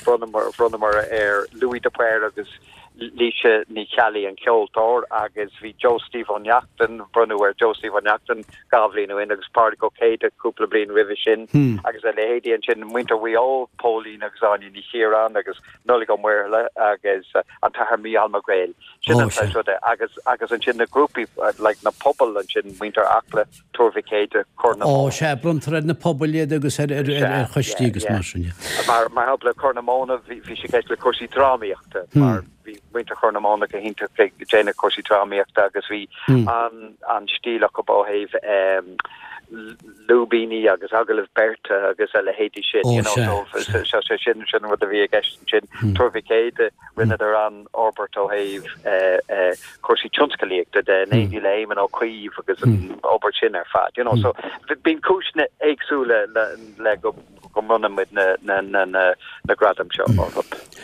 bhronnamar ar Louis de Paor agus Laoise Ní Cheallaigh, an ceoltóir, agus bhí Joe Steve Ó Neachtain, bronnadh ar Joe Steve Ó Neachtain dhá bhliain ó shin agus Pádraig Ó Céidigh cúpla bliain roimhe sin agus a leithéidí ansin, muintir Mhaigh Eo, Póilín agus Áine Ní Chiaráin agus Nollaig Ó Muirthile agus an tAthair Mícheál Mac Gréil. Sin an saghas ruda. Agus, agus ansin na grúpaí, like na pobail ansin, muintir Acla, Tuar Mhic Éadaigh, Corr na Móna. Ó, sea, bronntar ar na pobail iad agus ar, ar, ar, ar choistí agus mar sin, yeah. Mar, mar shampla, Corr na Móna, bhí, bhí sé i gceist le cúrsaí drámaíochta, mar bhí muintir Chorr na Móna go hiontach ag déanamh cúrsaí drámaíochta agus bhí an, an stíl acu ó thaobh ehm, lúibíní agus agallaimh beirte agus a leithéidí sin, you know, so, so, so sin, sin an rud a bhí i gceist ansin. Tuar Mhic Éadaigh, rinneadar an-fhorbairt ó thaobh cúrsaí tionscalaíochta de, in éindí le Éamon Ó Cuív agus an obair sin ar fad, you know, so bíonn cúiseanna éagsúla le go go mbronnann muid na na na na gradaim seo orthu.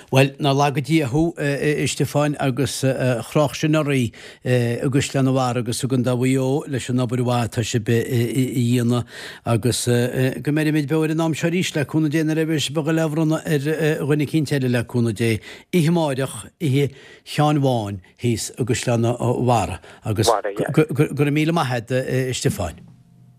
Bhuel, nár laga Dia thú, a Stiofáin, agus a chroch sin oraibh i gCaisleán an Bharraigh agus i gContae Mhaigh Eo leis an obair mhaith atá sibh a dhéanamh agus go mbeirimid beo ar an am seo arís le cúnamh Dé nuair a bheidh sibh ag dul á bhronnadh ar dhuine eicínt eile le cúnamh Dé oíche amáireach, oíche Sheáin Bháin thíos i gCaisleán an Bharraigh agus go raibh míle maith a't a Stiofáin.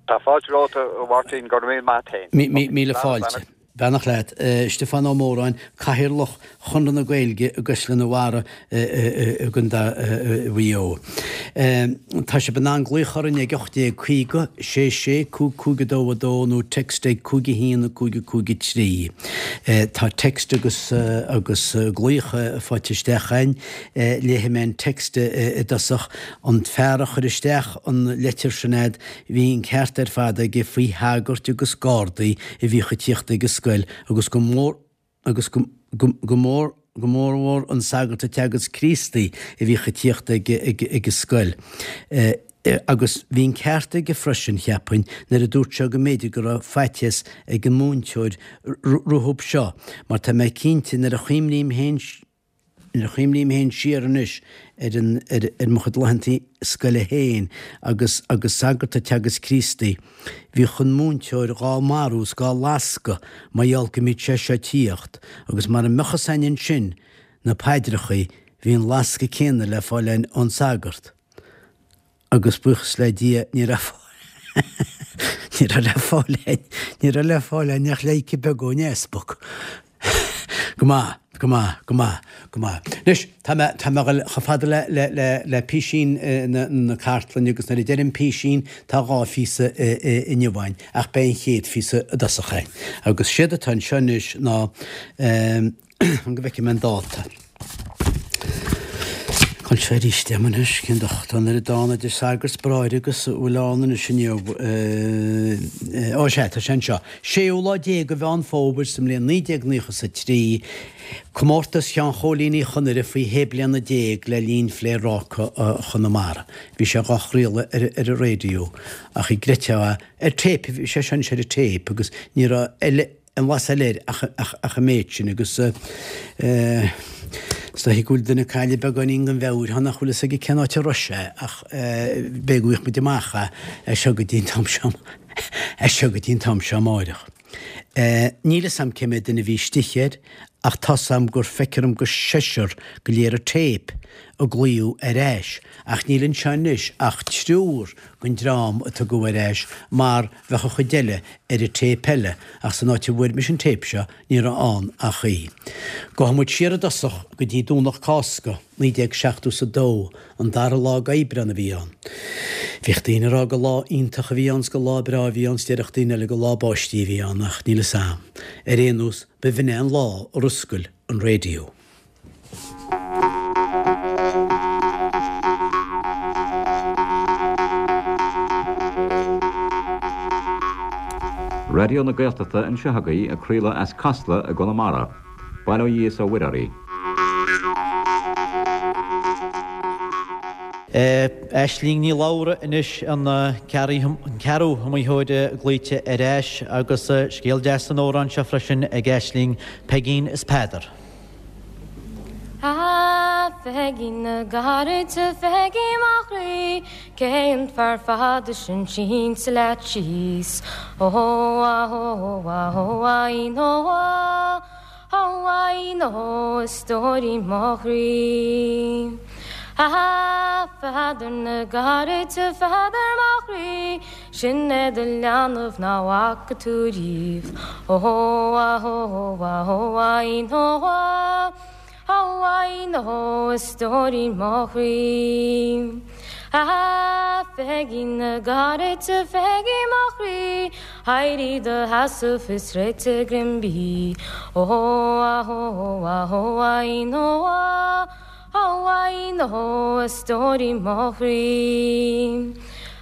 Tá fáilte romhat a Mháirtín, go raibh míle maith a't féin. Míle fáilte. Beannacht leat. Stiofán Ó Móráin, Cathaoirleach Chonradh na Gaeilge i gCaisleán an Bharraigh i gContae Mhaigh Eo. Tá sibh in ann glaoch orainn ag 1850 66 55 2 2 nó text ag 5 1 5 5 3. Tá text agus agus glaoch faighte isteach againn. Léifidh mé an text i dtosach. An fear a chuir isteach an leitir sin a'd, bhí an ceart ar fad aige faoi shagairt agus gardaí a bhíodh ag tíocht ag an scoil agus go mór agus go go mór go mórmhór an sagart ag teagasc Críostaí a bhíodh ag tíocht ag ag ag an scoil. Agus bhí an ceart aige freisin, cheapfainn, nuair a dúirt sé go mb'fhéidir go raibh faitíos ag an múinteoir rompu seo, mar tá mé cinnte nuair a chuimhním féin Nuair a chuimhním féin siar anois ar an, ar, ar mo chuid laethanta scoile féin agus, agus sagart ag teagasc Críostaí, bhíodh an múinteoir dhá marú is dhá lascadh mar gheall go mbíodh sé seo ag tíocht agus mara mbeadh fhios a'inn ansin na paidreachaí, bhí an lascadh céanna le fáil a'inn ón sagart. Agus buíochas le Dia ní raibh ní raibh le fáil a'inn, ní raibh le fáil a'inn ach pleidhce beag ón easpag. Go maith, go maith, go maith, go maith. Anois, tá mé, tá mé a dhul chomh fada le, le, le, le písín na, na cartlainne agus nuair a deirim písín tá dhá phíosa inniu a'inn ach beidh an chéad phíosa i dtosach a'inn. Agus séard atá anseo anois ná, Fan go bhfeicfidh mé an dáta. Cá bhfuil sé arís agam anois, cén docht tá an oiread ann idir sagart 's bráithre agus a bhfuil ann anois inniu. Ó sea, tá sé anseo. Séú lá déag de Mheán Fómhair sa mbliain 1993, Comórtas Sheáin Chóilín Uí Chonaire faoi shé bliana déag le linn Phléaráca Chonamara. Bhí sé dhá chraoladh ar an raidió ach an gcreidfeá é, ar téip, bhí sé seo anois ar an téip agus ní raibh eile, Aon bhlas eile air ach an méid sin agus. Is dóichí go bhfuil duine ag cailleadh beagáinín den mheabhair thá nach bhfuil fhios aige cén áit a raibh sé ach b'fhéidir go bhfaighidh muid amach é as seo go dtí an t-am seo as seo go dtí an t-am seo amáireach. Níl fhios a'm cé mhéad duine a bhí istigh air ach tá's a'm gur feictear dom gur seisear go léir an téip a glaodh ar ais ach níl anseo anois ach triúr den dream a tugadh ar ais mar bheadh an chuid eile ar an téip eile ach san áit a bhfuair mise an téip seo ní raibh ann ach í. Gabhfaidh muid siar i dtosach go dtí Domhnach Cásca, 1970 's a dó, an dara lá d'Aibreán a bhí ann. Bhíodh daoine ag rá gur lá iontach a bhí ann 's gur lá breá a bhí ann 's déarfadh daoine eile gur lá báistí a bhí ann ach níl fhios a'm. Ar aon nós, ba bh'in é an lá ar oscail an raidió. Raidió na Gaeltachta anseo agaibh ag craoladh as Casla i gConamara. Bail ó Dhia is ó Mhuire oraibh. Aisling Ní Labhra anois an ceathrú hiomaitheoir glaoite ar ais agus scéal deas san amhrán seo freisin ag Aisling, Peigín is Peadar. A Pheigín na gcarad, a Pheigí mo chroí, Cé an fear fada sin sínte leat síos? Ó a ó a ó a ín ó a ó a ín ó a stóirín mo chroí. A Pheadair na gcarad, a Pheadair mo chroí, Sin é do leanbh ná bhfaca tú riamh. Ó a ó a ó a ín ó a ó a ín ó a stóirín mo chroí. A Pheigín na gcarad, a Pheigí mo chroí, éirigh i do sheasamh is réitigh greim bídh. Ó a ó a ó a ín ó a Ó a ín ó a stóirín mo chroí.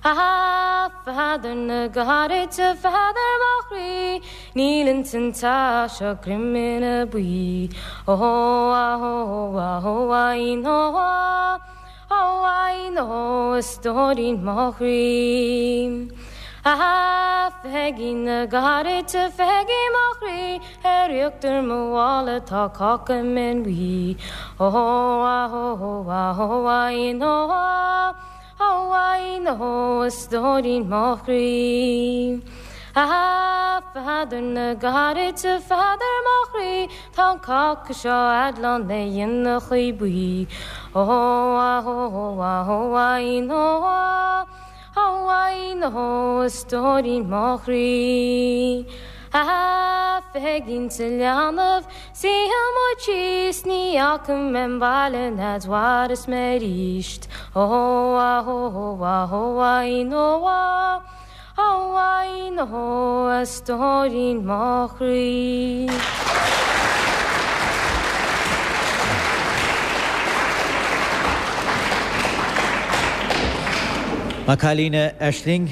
A Pheadair na gcarad, a Pheadair mo chroí, níl ins an teach seo greim ina buí. Ó a ó a ó a ín ó a ó a ín ó a stóirín mo chroí. A Pheigín na gcarad, a Pheigí mo chroí, Ar íochtar mo mhála tá cáca mín buí. Ó a ó a ó a ín ó a ó a ín ó a stóirín mo chroí. A Pheadair na gcarad, a Pheadair mo chroí, tá an cáca seo a'd lán le inneachaí buí. Ó a ó a ó a ín ó a Ó a ín ó a stóirín mo chroí. A Pheigín sa leanbh, suífidh muid síos, ní fhaca mé an baile n'fhead mhaireas mé aríst. Ó a ó a ó a ín ó a ó a ín ó a stóirín mo chroí. Maith an cailín a Aisling.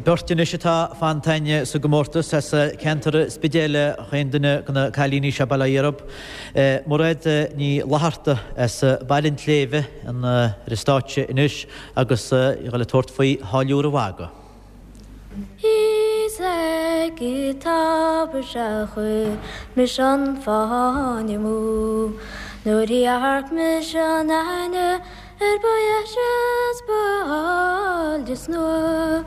Beirt anois atá fanta againn sa gcomórtas as ceantar an Spidéil chaon duine de na cailíní seo, bail ó Dhia orthub. Mairéad Ní Fhlatharta as Baile an tSléibhe ar an stáitse anois agus í ag dul ag tabhairt faoi Tháilliúr a' Mhagaidh. Is ag an tobar sea chuir mise an fáinne amú Nuair a dhearc mise an aithne air ba dheise 's ba áille 's nua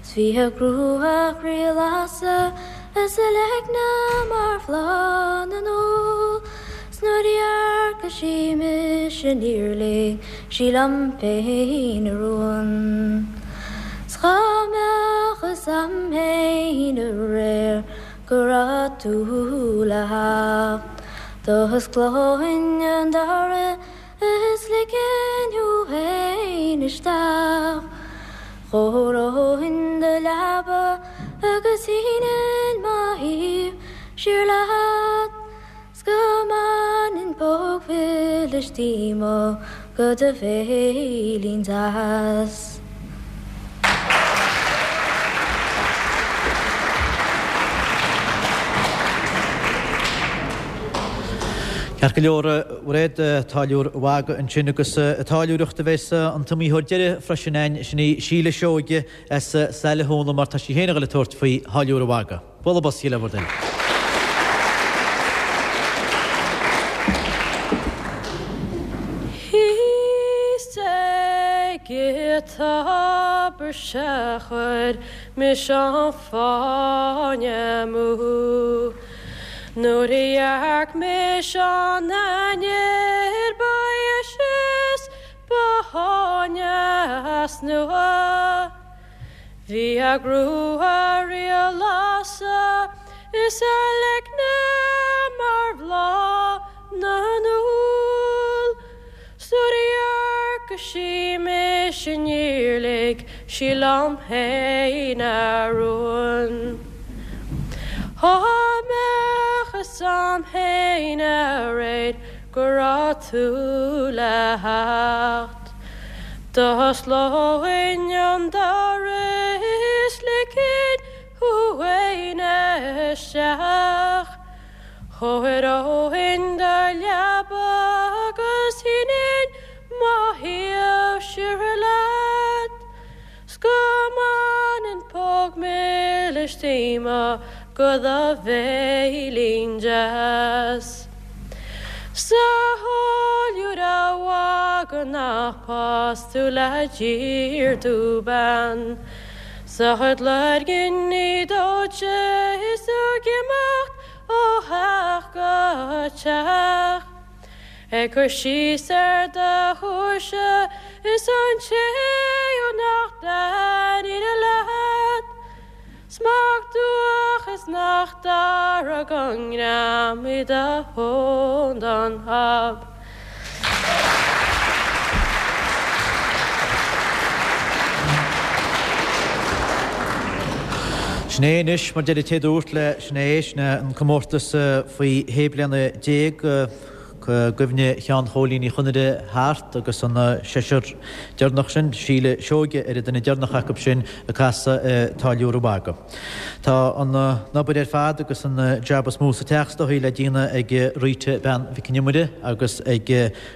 'S bhí a grua chroí-lasadh is a leigne mar bhláth na n-úll 'S nuair a dhearc sí mise níor lig sí liom féin a rún. 'S dhá mbeadh fhios a'm féin aréir go raibh tú le theacht D'osclóinn an doras is ligfinn thú féin isteach. Chóireoinn do leaba agus shínfinn mo thaobh siar leat. 'S go mbainfinn póg mhilis díom go do bhéilín deas. Ceart go leor, a Mhairéad, Táilliúr a' Mhagaidh ansin agus ag táilliúireacht a bheas an t-iomaitheoir deiridh freisin againn, sin í Síle Seoige as Saile Thúna mar tá sí féin ag dul ag tabhairt faoi Tháilliúr a' Mhagaidh. Bualadh bos le bhur dtoil. tobar 'sea chuir mise an fáinne amú. Nuair a dhearc mise an ainnir ba dheise is ba shaigne as nua. Bhí a grua riaghlása is a leicne mar bhláth na n-úll. 'S nuair a dhearc sí mise níor lig sí liom féin a rún. Dhá mbeadh fhios a'm féin aréir go raibh tú le theacht. D'osclóinn an doras is ligfinn thú fhéin isteach. Chóireoinn do leaba agus shínfinn mo thaobh siar leat. 'S go mbainfinn póg milis díomá go do bhéilín deas. 'S a tháilliúra mhagaidh nach pas tú le tír dúban. 'S a chuid loirgní dóite is tú ag imeacht ó theach go teach. Ag cur síos ar do thuirse is an té nach dtaitníonn leat. 'S mac dubhach is nach dearg an greim i do thóin don hob. Sin é anois, mar deir an té dúirt le sin é, sin é an comórtas faoi shé bliana déag i gcuimhne Sheáin Chóilín Uí Chonaire thart agus an seisear deireanach sin, Síle Seoige ar an duine deireanach acu sin ag casadh an Táilliúra Mhagaidh. Tá an obair ar fad agus an jab is mó sa teach is dóichí le déanamh ag Rita Bean Mhic an Iomaire agus ag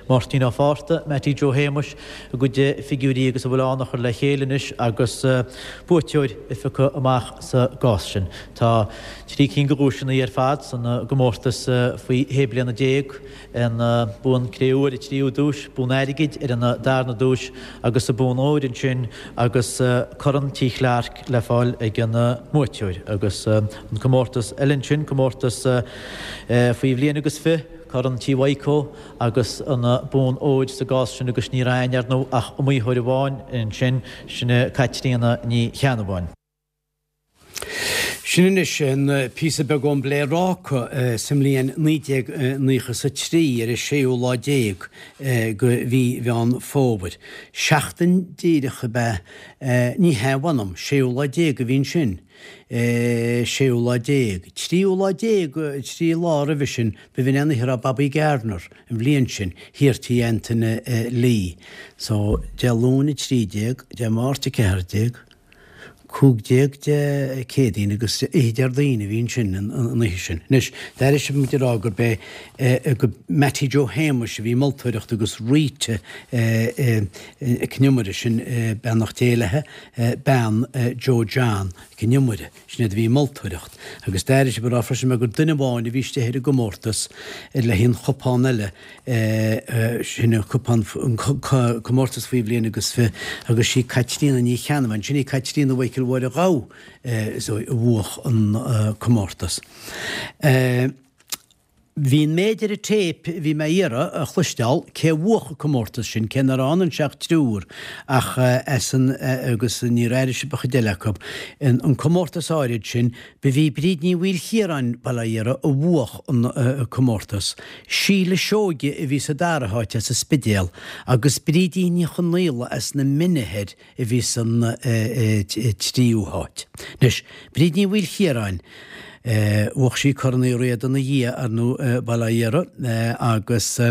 Máirtín Ó Fátharta, Mattie Joe Shéamuis, a gcuid figiúirí agus a bhfuil ann a chur le chéile anois agus buaiteoir a phiocadh amach sa gcás sin. Tá trí cinn de dhuaiseanna ar fad san gcomórtas faoi shé bliana déag, an bonn cré-umha ar an tríú duais, bonn airgid ar an darna duais agus an bonn óir ansin agus Corn Tí Chlarke le fáil ag an mbuaiteoir. Agus an comórtas eile ansin, comórtas faoi bhliain agus fi, Corn Tí Mhaidhcó agus an bonn óir sa gcás sin agus ní raibh ann, ar ndóigh, ach iomaitheoir amháin ansin, sin í Caitríona Ní Cheannabháin. Sin anois an píosa beag ón bPléaráca sa mbliain 1993 ar an séú lá déag de mhí Mheán Fómhair. Seachtain díreach ab ea, ní hea, mh'anam, séú lá déag a bhí ansin, séú lá déag, tríú lá déag, trí lá roimhe sin, b'in an oíche a raibh Bobby Gardner, an bhliain sin, thiar Tí Antaine Lee. So, Dé Luain 13, Dé Máirt 14, 15 Dé Céadaoin agus oíche Déardaoin a bhí ansin an oíche sin. Anois, d'airigh sibh muid ag rá gurb é go Mattie Joe Shéamuis a bhí moltóireacht agus Rita Nic an Iomaire, sin beannacht Dé léi, bean Joe John Mhic an Iomaire, sin iad a bhí moltóireacht. Agus d'airigh sibh ag rá freisin gur duine amháin a bhí istigh ar an gcomórtas le haghaidh an chupán eile, Sin an cupán, an comórtas faoi bhliain agus fi agus sí Caitríona Ní Cheannabháin, sin í Caitríona Mhichael Mháire Ghabha a bhuach an comórtas. Bhí an méid ar an téip a bhí mé a iarraidh a chloisteáil cé a bhuach an comórtas sin, cé nach raibh ann anseo ach triúr ach as an agus níor airigh sibh an chuid eile acu. An comórtas áirid sin, Ba í Bríd Ní Mhaoilchiaráin, Baile Átha Iartha, a bhuach an comórtas. Síle Seoige a bhí sa dara háit as an Spidéal agus Brídín Ní Chonaola as na Mine Thoir a bhí san tríú háit. Anois, Bríd Ní Mhaoilchiaráin, bhuach sí Corn Uí Riada ina dhiaidh, ar ndóigh, Baile Átha Iartha, agus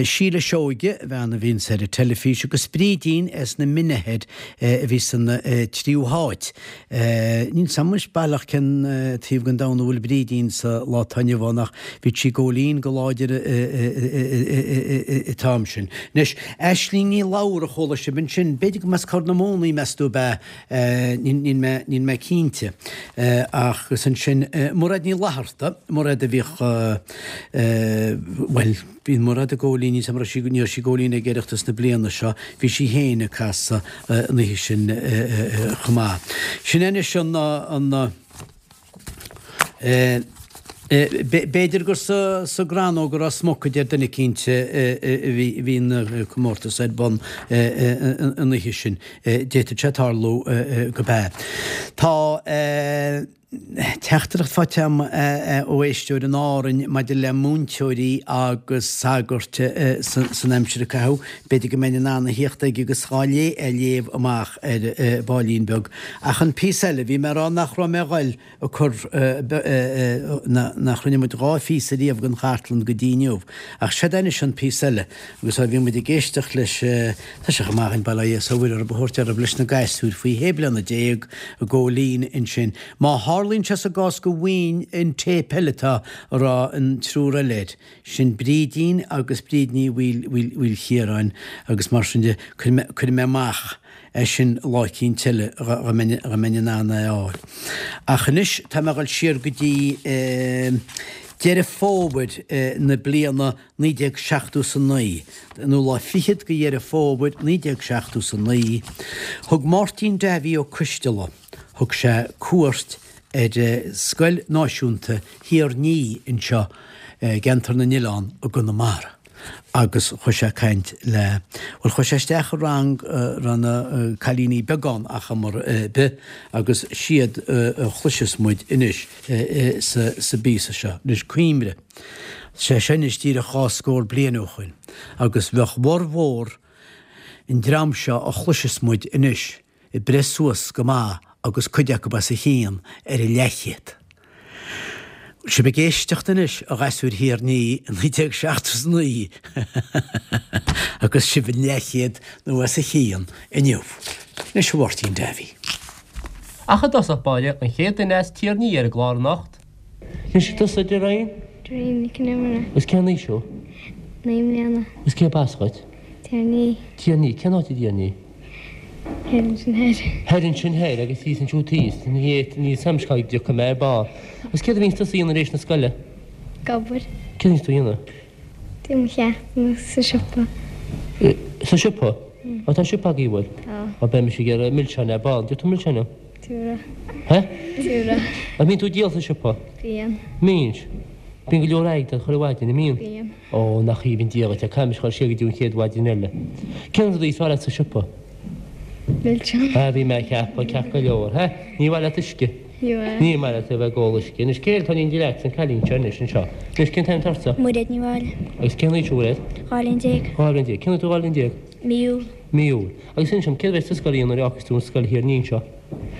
Síle Seoige, bean a bhíonns ar an teilifís, agus Brídín as na Mine Thoir a bhí san tríú háit. Níl 's a'm anois baileach cén taobh den domhan a bhfuil Brídín sa lá atá inniu ann ach bhí sí ag góilín go láidir an t-am sin. Anois, Aisling Ní Labhra a chuala sibh ansin, b'fhéidir go mb'as Corr na Móna í meas tú ab ea, níl mé, níl mé cinnte. Ach agus ansin. Mairéad Ní Fhlatharta, Mairéad a bhíodh, bhuel, bíonn Mairéad ag Góilín, ní raibh sí, ní raibh sí ag Góilín ag Oireachtas na bliana seo, bhí sí féin ag casadh an oíche sin chomh maith. Sin é anois an, an, B'fhéidir gur sa gCrannóg a raibh smock a deir duine eicínt a bhí an comórtas ar bun an oíche sin. D'fhéadfadh sé tarlú gurb ea. Tá teachtaireacht faighte agam ó éisteoir in Árainn maidir le múinteoirí agus sagairt san aimsir a caitheadh. B'fhéidir go mbeinn in ann a thíocht aige agus dhá é a léamh amach ar baillín beag. Ach an píosa eile, bhí mé ag rá nach raibh mé a ghoil ag cur, nach rinne muid dhá phíosa riamh den chartlann go dtí inniu. Ach seod é anois an píosa eile. Agus ó bhí muid ag éisteacht leis, tá sé chomh maith againn bail ó Dhia 's ó Mhuire orthu a thabhairt orthu leis na gasúir faoi shé bliana ag Góilín ansin. Má tharlaíonn sé sa gcás go bhfaighinn an téip eile atá a raibh an triúr eile air, Sin Brídín agus Bríd Ní Mhaoilchiaráin agus mar sin de, cuirfidh mé amach é sin lá eicínt eile dá mbeinn in ann é a fháil. Ach anois tá mé a dhul siar go dtí Deireadh Fómhair na bliana 1979, nó lá fichead de Dheireadh Fómhair 1979, thug Máirtín Davy Ó Coisteala, thug sé cuairt ar Scoil Náisiúnta Thír Ní anseo i gCeantar na nOileán i gConamara agus chuaigh sé ag caint le, bhuel chuaigh sé isteach i rang a raibh na cailíní beaga ann ar chuma ar bith agus siad a chloisfeas muid anois sa bpíosa seo. Anois cuimhnigh, sé seo anois díreach dhá scór bliain ó shoin agus bheadh bhformhór an dream seo a chloisfeas muid anois ag breith suas go maith agus cuid acu os a chionn ar an leathchéad. Bhfuil sibh ag éisteacht anois, a ghasúir Thír Ní i 1979 agus sibh an leathchéad nó os a chionn inniu. Anois a Mháirtín Davy. Ach i dtosach báire, an chéad duine as Tír Ní ar an gclár anocht. Anois, tusa, Doreen? Doreen Nic an Iomaire. Agus cén aois thú? 9 mbliana. Agus cérb as dhuit? Tír Ní. Tír Ní. Cén áit i dTír Ní? Thoir ansin thoir. Thoir ansin thoir agus thíos ansiúd thíos. Ní níl 'fhios a'm cá dtiocfaidh mé ar ball. Agus céard a bhíonns tusa a dhéanamh tar éis na scoile? Ag obair. Céard a bhíonns tú a dhéanamh? Déanamh mo cheachtanna sa siopa. Sa siopa? Á tá siopa agaibh, bhfuil? Tá. Á beidh mise ag iarraidh milseáin ar ball. An dtiocfaidh tú milseáin liom? Tiúra. Hé? Tiúra. An mbíonn tú ag díol sa siopa? Bíonn. Mbíonn? Bíonn go leor airgid chuile mhaidin, an mbíonn? Bíonn. Ó, nach aoibhinn Dia dhuit é, caithfidh mise dhul siar go dtí an chéad mhaidin eile. Cén rud is fearr leat sa siopa? Milseáin. Ah, bhí mé ag ceapadh, ceart go leor. Hé? Ní mhaith leat uisce? Ní mhaith. Ní maith leat a bheith ag ól uisce. Anois, cé eile atá in éindí leat? An cailín seo anois, anseo. Anois, cén t-ainm atá ortsa? Muiréad Ní Mháille. Agus cén aois thú, a Mhuiréad? 12 bhliain. 12 bhliain. Cén uair tú 12 bhliain? Mí Iúil. Mí Iúil. Agus inis dom, céard a bheas tú sa scoil a dhéanamh nuair a fhágfas tú an scoil Thír Ní anseo?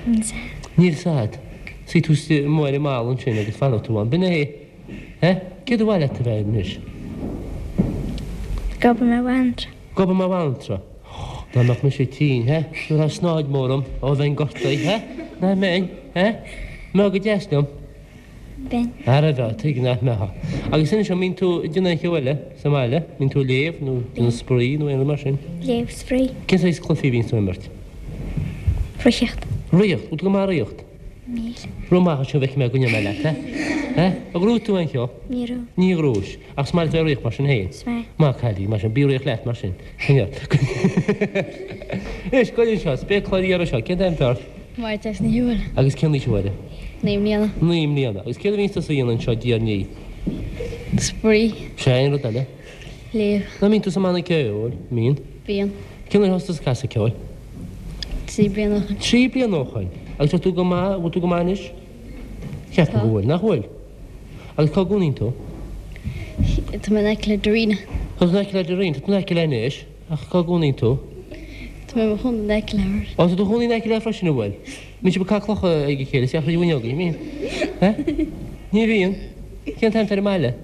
Níl 's a'd. Níl 's a'd. Suífidh tú amuigh ar an mballa ansin agus fanfaidh tú ann. B'in é. Eh? Céard ba mhaith leat a bheith anois? Ag obair mar bhanaltra. Ag obair mar bhanaltra. Dá mbeadh mise tinn, eh? Thabharfá snáid mhór dom, ó bheinn gortaithe, eh? Nach mbeinn, eh? Mbeifeá go deas liom? Bheinn. Ara bheadh, tuige nach mbeifeá. Agus inis dom, mbíonn tú ag déanamh aon cheo eile sa mbaile? Mbíonn tú ag léamh nó déanamh spraoi nó aon rud mar sin? Léamh, spraoi. Cén saghas cluichí a bhíonns tú ag imirt? Reathaíocht. Reathaíocht? Bhfuil tú go maith ag reathaíocht? Níl. Rith amach anseo bhfeicfidh mé go ndéanfaidh mé leat é. Eh? Ar ghnóthaigh tú aon cheo? Ní raibh. Ní ghnóthaigh. Ach is maith leat bheith ag reathaíocht mar sin féin? Is maith. Maith cailín, mar sin. Bí ag reathaíocht leat mar sin. Coinneáil. Anois, goil anseo, spéacláir ghéara seo, cén t-ainm atá ort? Máire Treasa Ní Shiubhail. Agus cén aois a Mháire? 9 mbliana. 9 mbliana. Agus céard a bhíonns tusa a dhéanamh anseo i dTír Ní? Spraoi. Sea, aon rud eile? Léamh. Nach mbíonn tú sa mbanna ceoil? Mbíonn? Bíonn. Cén uair a thosaigh tusa ag casadh ceoil? 3 bliana ó shoin. 3 bliana ó shoin. Agus tá tú go maith, bhfuil tú go maith anois? Ceapaim go bhfuil, nach bhfuil? Agus cá gcónaíonn tú? Tá mé in aice le Darina. Tá tú in aice le Darina, tá tú in aice léi anois, ach cá gcónaíonn tú? Tá mé i mo chónaí in aice léi. Ó, tá tú i do chónaí in aice léi freisin, an bhfuil? Mbíonn sibh ag caitheamh clocha ag a chéile, isteach thríd an bhfuinneog, an mbíonn? Eh? Ní bhíonn? Cén t-ainm atá ar an mbaile?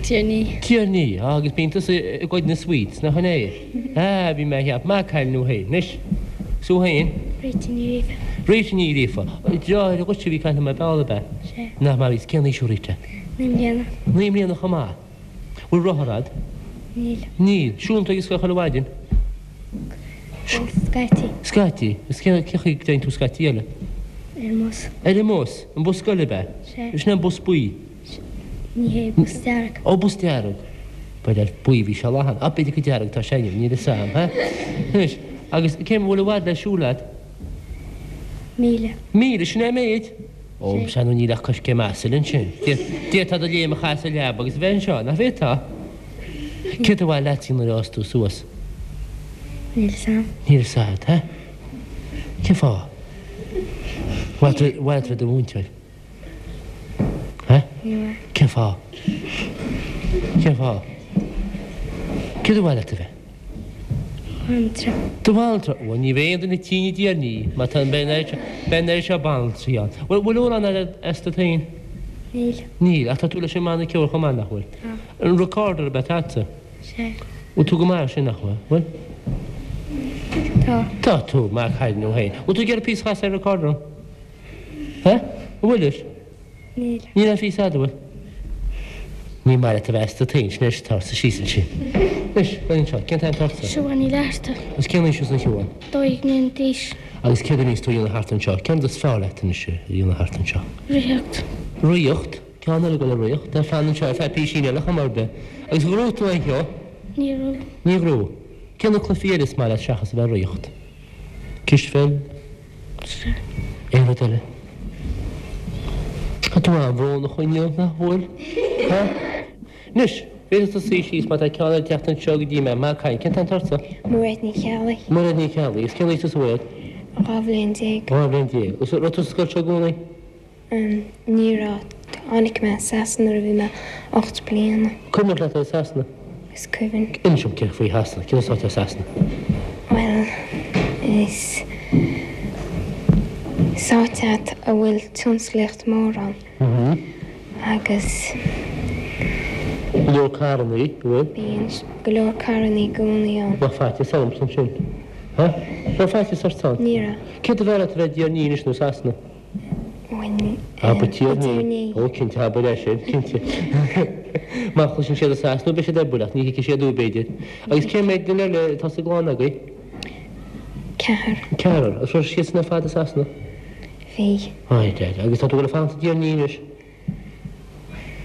Tír Ní. Tír Ní, á agus bíonn tusa ag goid na sweets, nach in é? Ah, bhí mé a cheapadh, maith cailín thú féin. Anois, 's thú féin? Rita Ní Ghríofa. Rita Ní Ghríofa. Deartháir dhuitse a bhí ag caint liom ar ball, ab ea? Sea. Nach maith, is cén aois thú Rita? 9 mbliana. 9 mbliana chomh maith. Bhfuil rothar a'd? Níl. Níl. Siúlann tú ag an scoil chuile mhaidin? Bhuel, scaití. Scaití. Is cén chaoi go dtéann tú scaití eile? Ar an mbus. Ar an mbus? An bus scoile ab ea? Sea. Sin é an bus buí? Ní hé, bus dearg. Ó, bus dearg. Ba le buí a bhí sé lá cheana. Á, b'fhéidir gur dearg atá sé inniu, níl fhios a'm, ha? Anois, agus cé, bhfuil i bhfad le siúl a'd? Míle. Míle, sin é an méid? Ó, sea, nó níl ach coiscéim asail ansin. D'fhéadfá do léim a chaitheamh sa leaba agus a bheith anseo, nach bhféadfá? Céard ba mhaith leat nuair a fhás tú suas? Níl fhios a'm. Níl fhios a'd, ha? Cén fáth? Ar mhaith leat a bheith i do mhúinteoir? Ha? Ní Cén fáth? Cén fáth? Céard ba mhaith leat a bheith? Banaltra. Do bhanaltra? Bhuel, ní bheidh aon duine tinn i dTír an Fhia, má tá an beidh an oiread seo banaltraí ann. Bhuel, bhfuil amhrán agat as duit féin? Níl. Níl, ach tá tú leis an mbanna ceoil chomh maith, nach bhfuil? Tá. An recorder ab ea atá agatsa? Sea. Bhfuil tú go maith air sin, nach bhfuil? Bhfuil? Tá. Tá tú, maith cailín thú féin. Bhfuil tú ag iarraidh píosa a chasadh ar recorder? Ha? An bhfuil leis? Níl. Níl aon phíosa agat, an bhfuil? Ní maith leat a bheith as duit féin, sin é, tar síos ansin. Anois, fan anseo, cén t-ainm atá ortsa? Siobhán Ní Fhlatharta. Agus cén aois thusa a Shiobhán? 12 mbliana d'aois. Agus céard a bhíonns tú a dhéanamh thart anseo? Cén rud is fearr leat anois a dhéanamh thart anseo? Ritheacht. Ritheacht? Ceann eile ag dul ag ritheacht, tá fan anseo ar feadh písín eile chuma ar bith. Agus an ghnóthaigh tú aon cheo? Níor ghnóthaigh. Níor ghnóthaigh. Cé na cluichí eile is maith leat seachas a bheith ag ritheacht? Cispheil? Sea. Aon rud eile? Tá tú an-bhrónach inniu, nach bhfuil? Ha? Anois, féadfaidh tú suí síos má tá ceann eile ag teacht anseo go dtí mé. Maith an cailín. Cén t-ainm atá ortsa? Mairéad Ní Cheallaigh. Mairéad Ní Cheallaigh. Agus cén aois tusa a Mhairéad? 12 bhliain. 12 bhliain. Agus raibh tú sa scoil seo i gcónaí? Ní raibh. Tháinig mé as Sasana nuair a bhí mé 8 bliana. Cuimhneach leat ar Sasana? Is cuimhin. Inis dom cé faoi Shasana, cén áit as Sasana? Bhuel, is is áit é a bhfuil tionsclaíocht mór ann. Agus. Go leor carrannaí, an bhfuil? Bíonn go leor carrannaí i gcónaí ann. Bheadh faitíos ormsa ansin. Ha? Raibh faitíos ort ann? Ní raibh. Céard ab fhearr leat a bheith i dTír an Fhia anois nó Sasana? Abair Tír an Fhia. Ó, cinnte, abair é sin, cinnte. Má chloiseann siad i Sasana, beidh siad ar buile, ach ní thuigfidh siad thú, b'fhéidir. Agus cé mhéad duine eile atá sa gclann agaibh? Ceathrar. Ceathrar. Agus raibh siadsan ar fad i Sasana? Bhí. Ai, dear. Agus tá tú ag dul a fanacht i dTír an Fhia anois?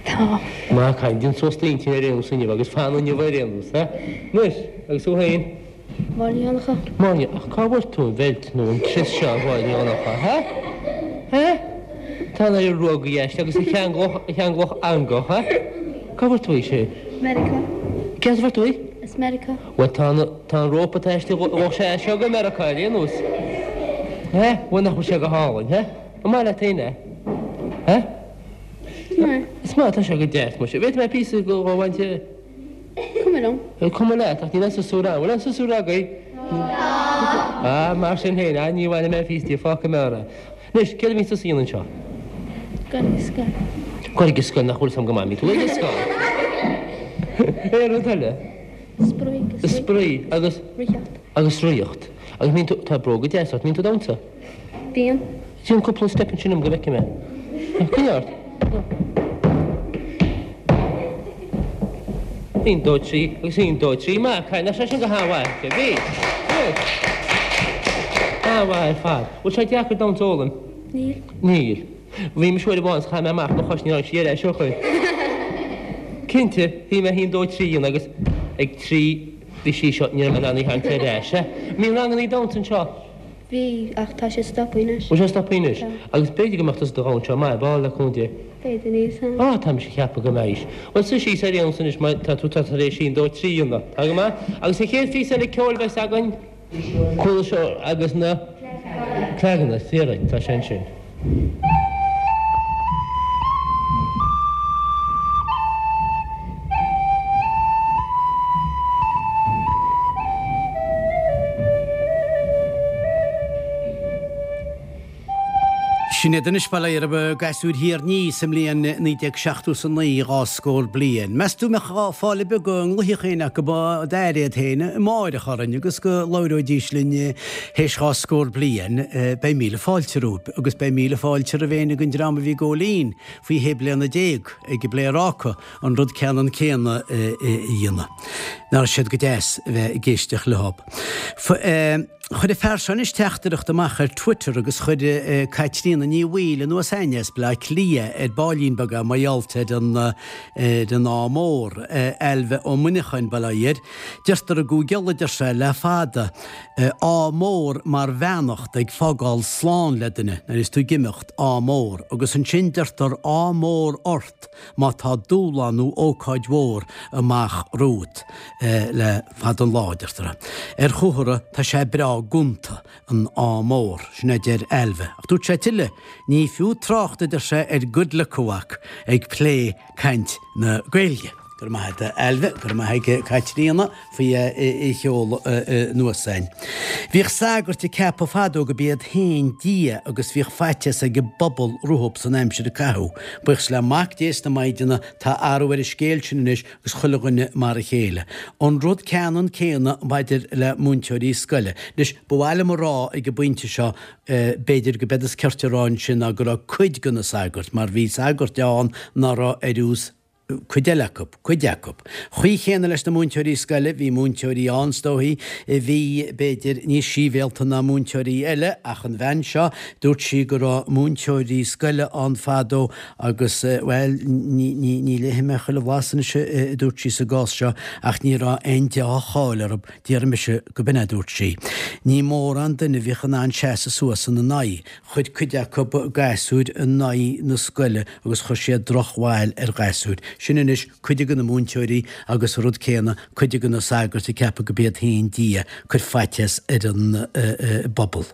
Tá. Maith an cailín, déan suas d'intinn ar aon nós inniu agus fan inniu ar aon nós, ha? Anois, agus thú féin? Máire Ní Dhonncha. Máire, Ach cá bhfuair tú an bheilt nó an crios seo, a Mháire Ní Dhonncha, ha? Ha? Tá an oiread ruóga aisti agus a cheanglódh, a cheanglódh eangach, ha? Cá bhfuair tú í sin? Meiriceá. Cé as a bhfuair tú í? As Meiriceá. Bhuel, tá an, tá an rópa atá aisti, ghabhfadh sé as seo go Meiriceá ar aon nós. Ha? Bhuel, nach bhfuil sé go hálainn, ha? An maith leat féin é? Ha? Is maith. Is maith, tá sé go deas, muise. Bhféadfaidh mé píosa de a bhaint de? Cuma liom. Cuma leat, ach níl aon siosúr ann. Bhfuil aon siosúr agaibh? Tá. Ah, mar sin féin, ah, ní bhainfidh mé píosa di, fágfaidh mé orthu. Anois, céard a bhíonn tusa a dhéanamh anseo? Gabháil ag scoil. Gabháil ag scoil, nach bhfuil 'fhios a'm go maith, mbíonn tú ag scoil. Aon rud eile? Spraoi agus rith. Spraoi agus? Ritheacht. Agus ritheacht. Agus mbíonn tú, tá bróga deasa ort, mbíonn tú ag damhsa? Bíonn. Déan cúpla step ansin dom go bhfeicfidh mé. Coinnigh ort. Aon, dó, trí, agus aon, dó, trí. Maith, cailín, nach sé sin go han-mhaith. Bhí. An-mhaith ar fad. Bhfuil sé deacair damhsa a fhoghlaim? Níl. Níl. Bhí mise uair amháin is chaith mé amach mo chois, níor tháinig sí ar ais ó shoin. Cinnte, bhí mé aon, dó, trí a dhéanamh agus ag trí bhí sí seo, ní raibh mé in ann í a tharraingt ar ais. Mbíonn rangannaí damhsa anseo? Bhí, ach tá sé stoptha anois. Bhfuil sé stoptha anois? Tá. Agus b'fhéidir go mbeadh tusa do dhomhan seo maith ar ball le cúnamh Dé. B'fhéidir, níl 'fhios a'm. Á, tá mise ag ceapadh go mbeidh. Bhuel, suigh síos ar aon nós anois mar tá tú tá tar éis aon, dó, trí a dhéanamh. Tá go maith. Agus an chéad phíosa eile ceoil a bheas againn, Cuala Shore agus na Cleaganna, fíor, tá sé ansin. Sin iad anois, bail ó Dhia orthu, gasúir Thír an Fhia sa mbliain 1979, dhá scór bliain. Meas tú an mbeadh fáil ar bith go nglaofaidh éinne acu d'aire iad féin amáireach orainn agus go labhróidís linn théis dhá scór bliain? Beidh míle fáilte romhaibh agus beidh míle fáilte roimh éinne den dream a bhí ag gabháil fhoinn faoi shé bliana déag ag an bPléaráca an rud ceannann céanna a dhéanamh. Nach raibh siad go deas a bheith ag éisteacht leo. Chuir an fear seo anois teachtaireacht amach ar Twitter agus chuir Caitríona Ní Bhaoill anuas a'ainn as Bleá Cliath ar baillín beag é mar gheall ar an ar an ádh mór. Ailbhe Ó Muineacháin, Baile Átha Fhirdh. Deirtear i gCúige Uladh, deir sé, le fada, ádh mór mar bheannacht ag fágáil slán le duine nuair is tú ag imeacht, ádh mór. Agus ansin deirtear ádh mór ort má tá dúshlán nó ócáid mhór amach romhat le fada an lá, deirtear. Ar chomhartha, tá sé breá gonta, an ádh mór, sin a deir Ailbhe. Ach dúirt sé tuilleadh, ní fiú trácht, a deir sé, ar good luck a mhac, ag plé caint na Gaeilge. Go raibh maith agat, a Ailbhe, go raibh maith ag Caitríona faoi a sheoladh anuas a'ainn. Bhíodh sagairt ag ceapadh fadó go b'iad féin Dia agus bhíodh faitíos ag an bpobal rompu san aimsir a caitheadh. Buíochas le Mac Dé is na Maighdine tá athrú ar an scéal sin anois agus chuile dhuine mar a chéile. An rud ceannann céanna maidir le múinteoirí scoile. Anois, ba mhaith liom a rá ag an bpointe seo B'fhéidir go b'éard is cirte a rá ansin ná go raibh cuid de na sagairt, mar bhí sagairt ann ná raibh ar fheabhas cuid eile acu, cuid acu. Chaoi chéanna leis na múinteoirí scoile, bhí múinteoirí ann, is dóichí, a bhí, b'fhéidir, níos síbhéalta ná múinteoirí eile, ach an bhean seo, dúirt sí go raibh múinteoirí scoile ann fadó agus, bhuel, ní, ní, ní léifidh mé chuile bhlas anois a dúirt sí sa gcás seo, ach ní raibh aon deá-cháil orthu. Déarfaidh mise go b'in é a dúirt sí. Ní mórán duine a bhíodh in ann seasamh suas ina n-aghaidh. Chuir cuid acu gasúir in aghaidh na scoile agus chuir siad drochbhail ar ghasúir. Sin anois cuid de na múinteoirí agus an rud céanna cuid de na sagairt ag ceapadh go b'iad féin Dia, cuir faitíos ar an bpobal.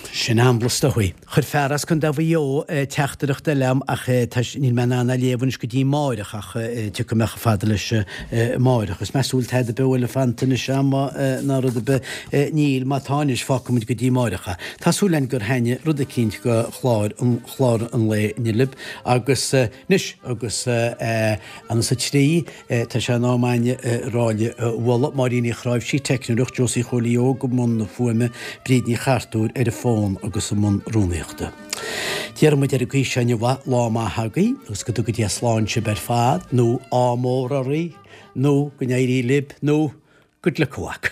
Sin amblas is dóichí. Chuir fear as Contae Mhaigh Eo teachtaireacht eile a'm ach tá níl mé in ann é a léamh anois go dtí amáireach ach tiocfaidh mé chomh fada leis amáireach. Is meas tú bhfuil tada beo eile fanta anois a'm ná rud ar bith? Níl, má tá anois fágfaidh muid go dtí amáireach é. Tá súil againn gur thaitnigh rud eicínt go chlár an chlár an lae inniu libh agus Anois, agus anas a 3, tá sé in am a'ainne a rá libh a mholadh, Máirín Uí Chráimhsí, teicneoireacht, Josie Chóilí Óg i mbun na fuaime, Bríd Ní Chartúir ar an bhfón agus i mbun rúnaíochta. Déarfaidh muid ar an gcaoi seo inniu, lá maith agaibh agus go dtuga Dia slán sibh ar fad, nó ádh mór oraibh, nó go n-éirí libh, nó good luck a mhac.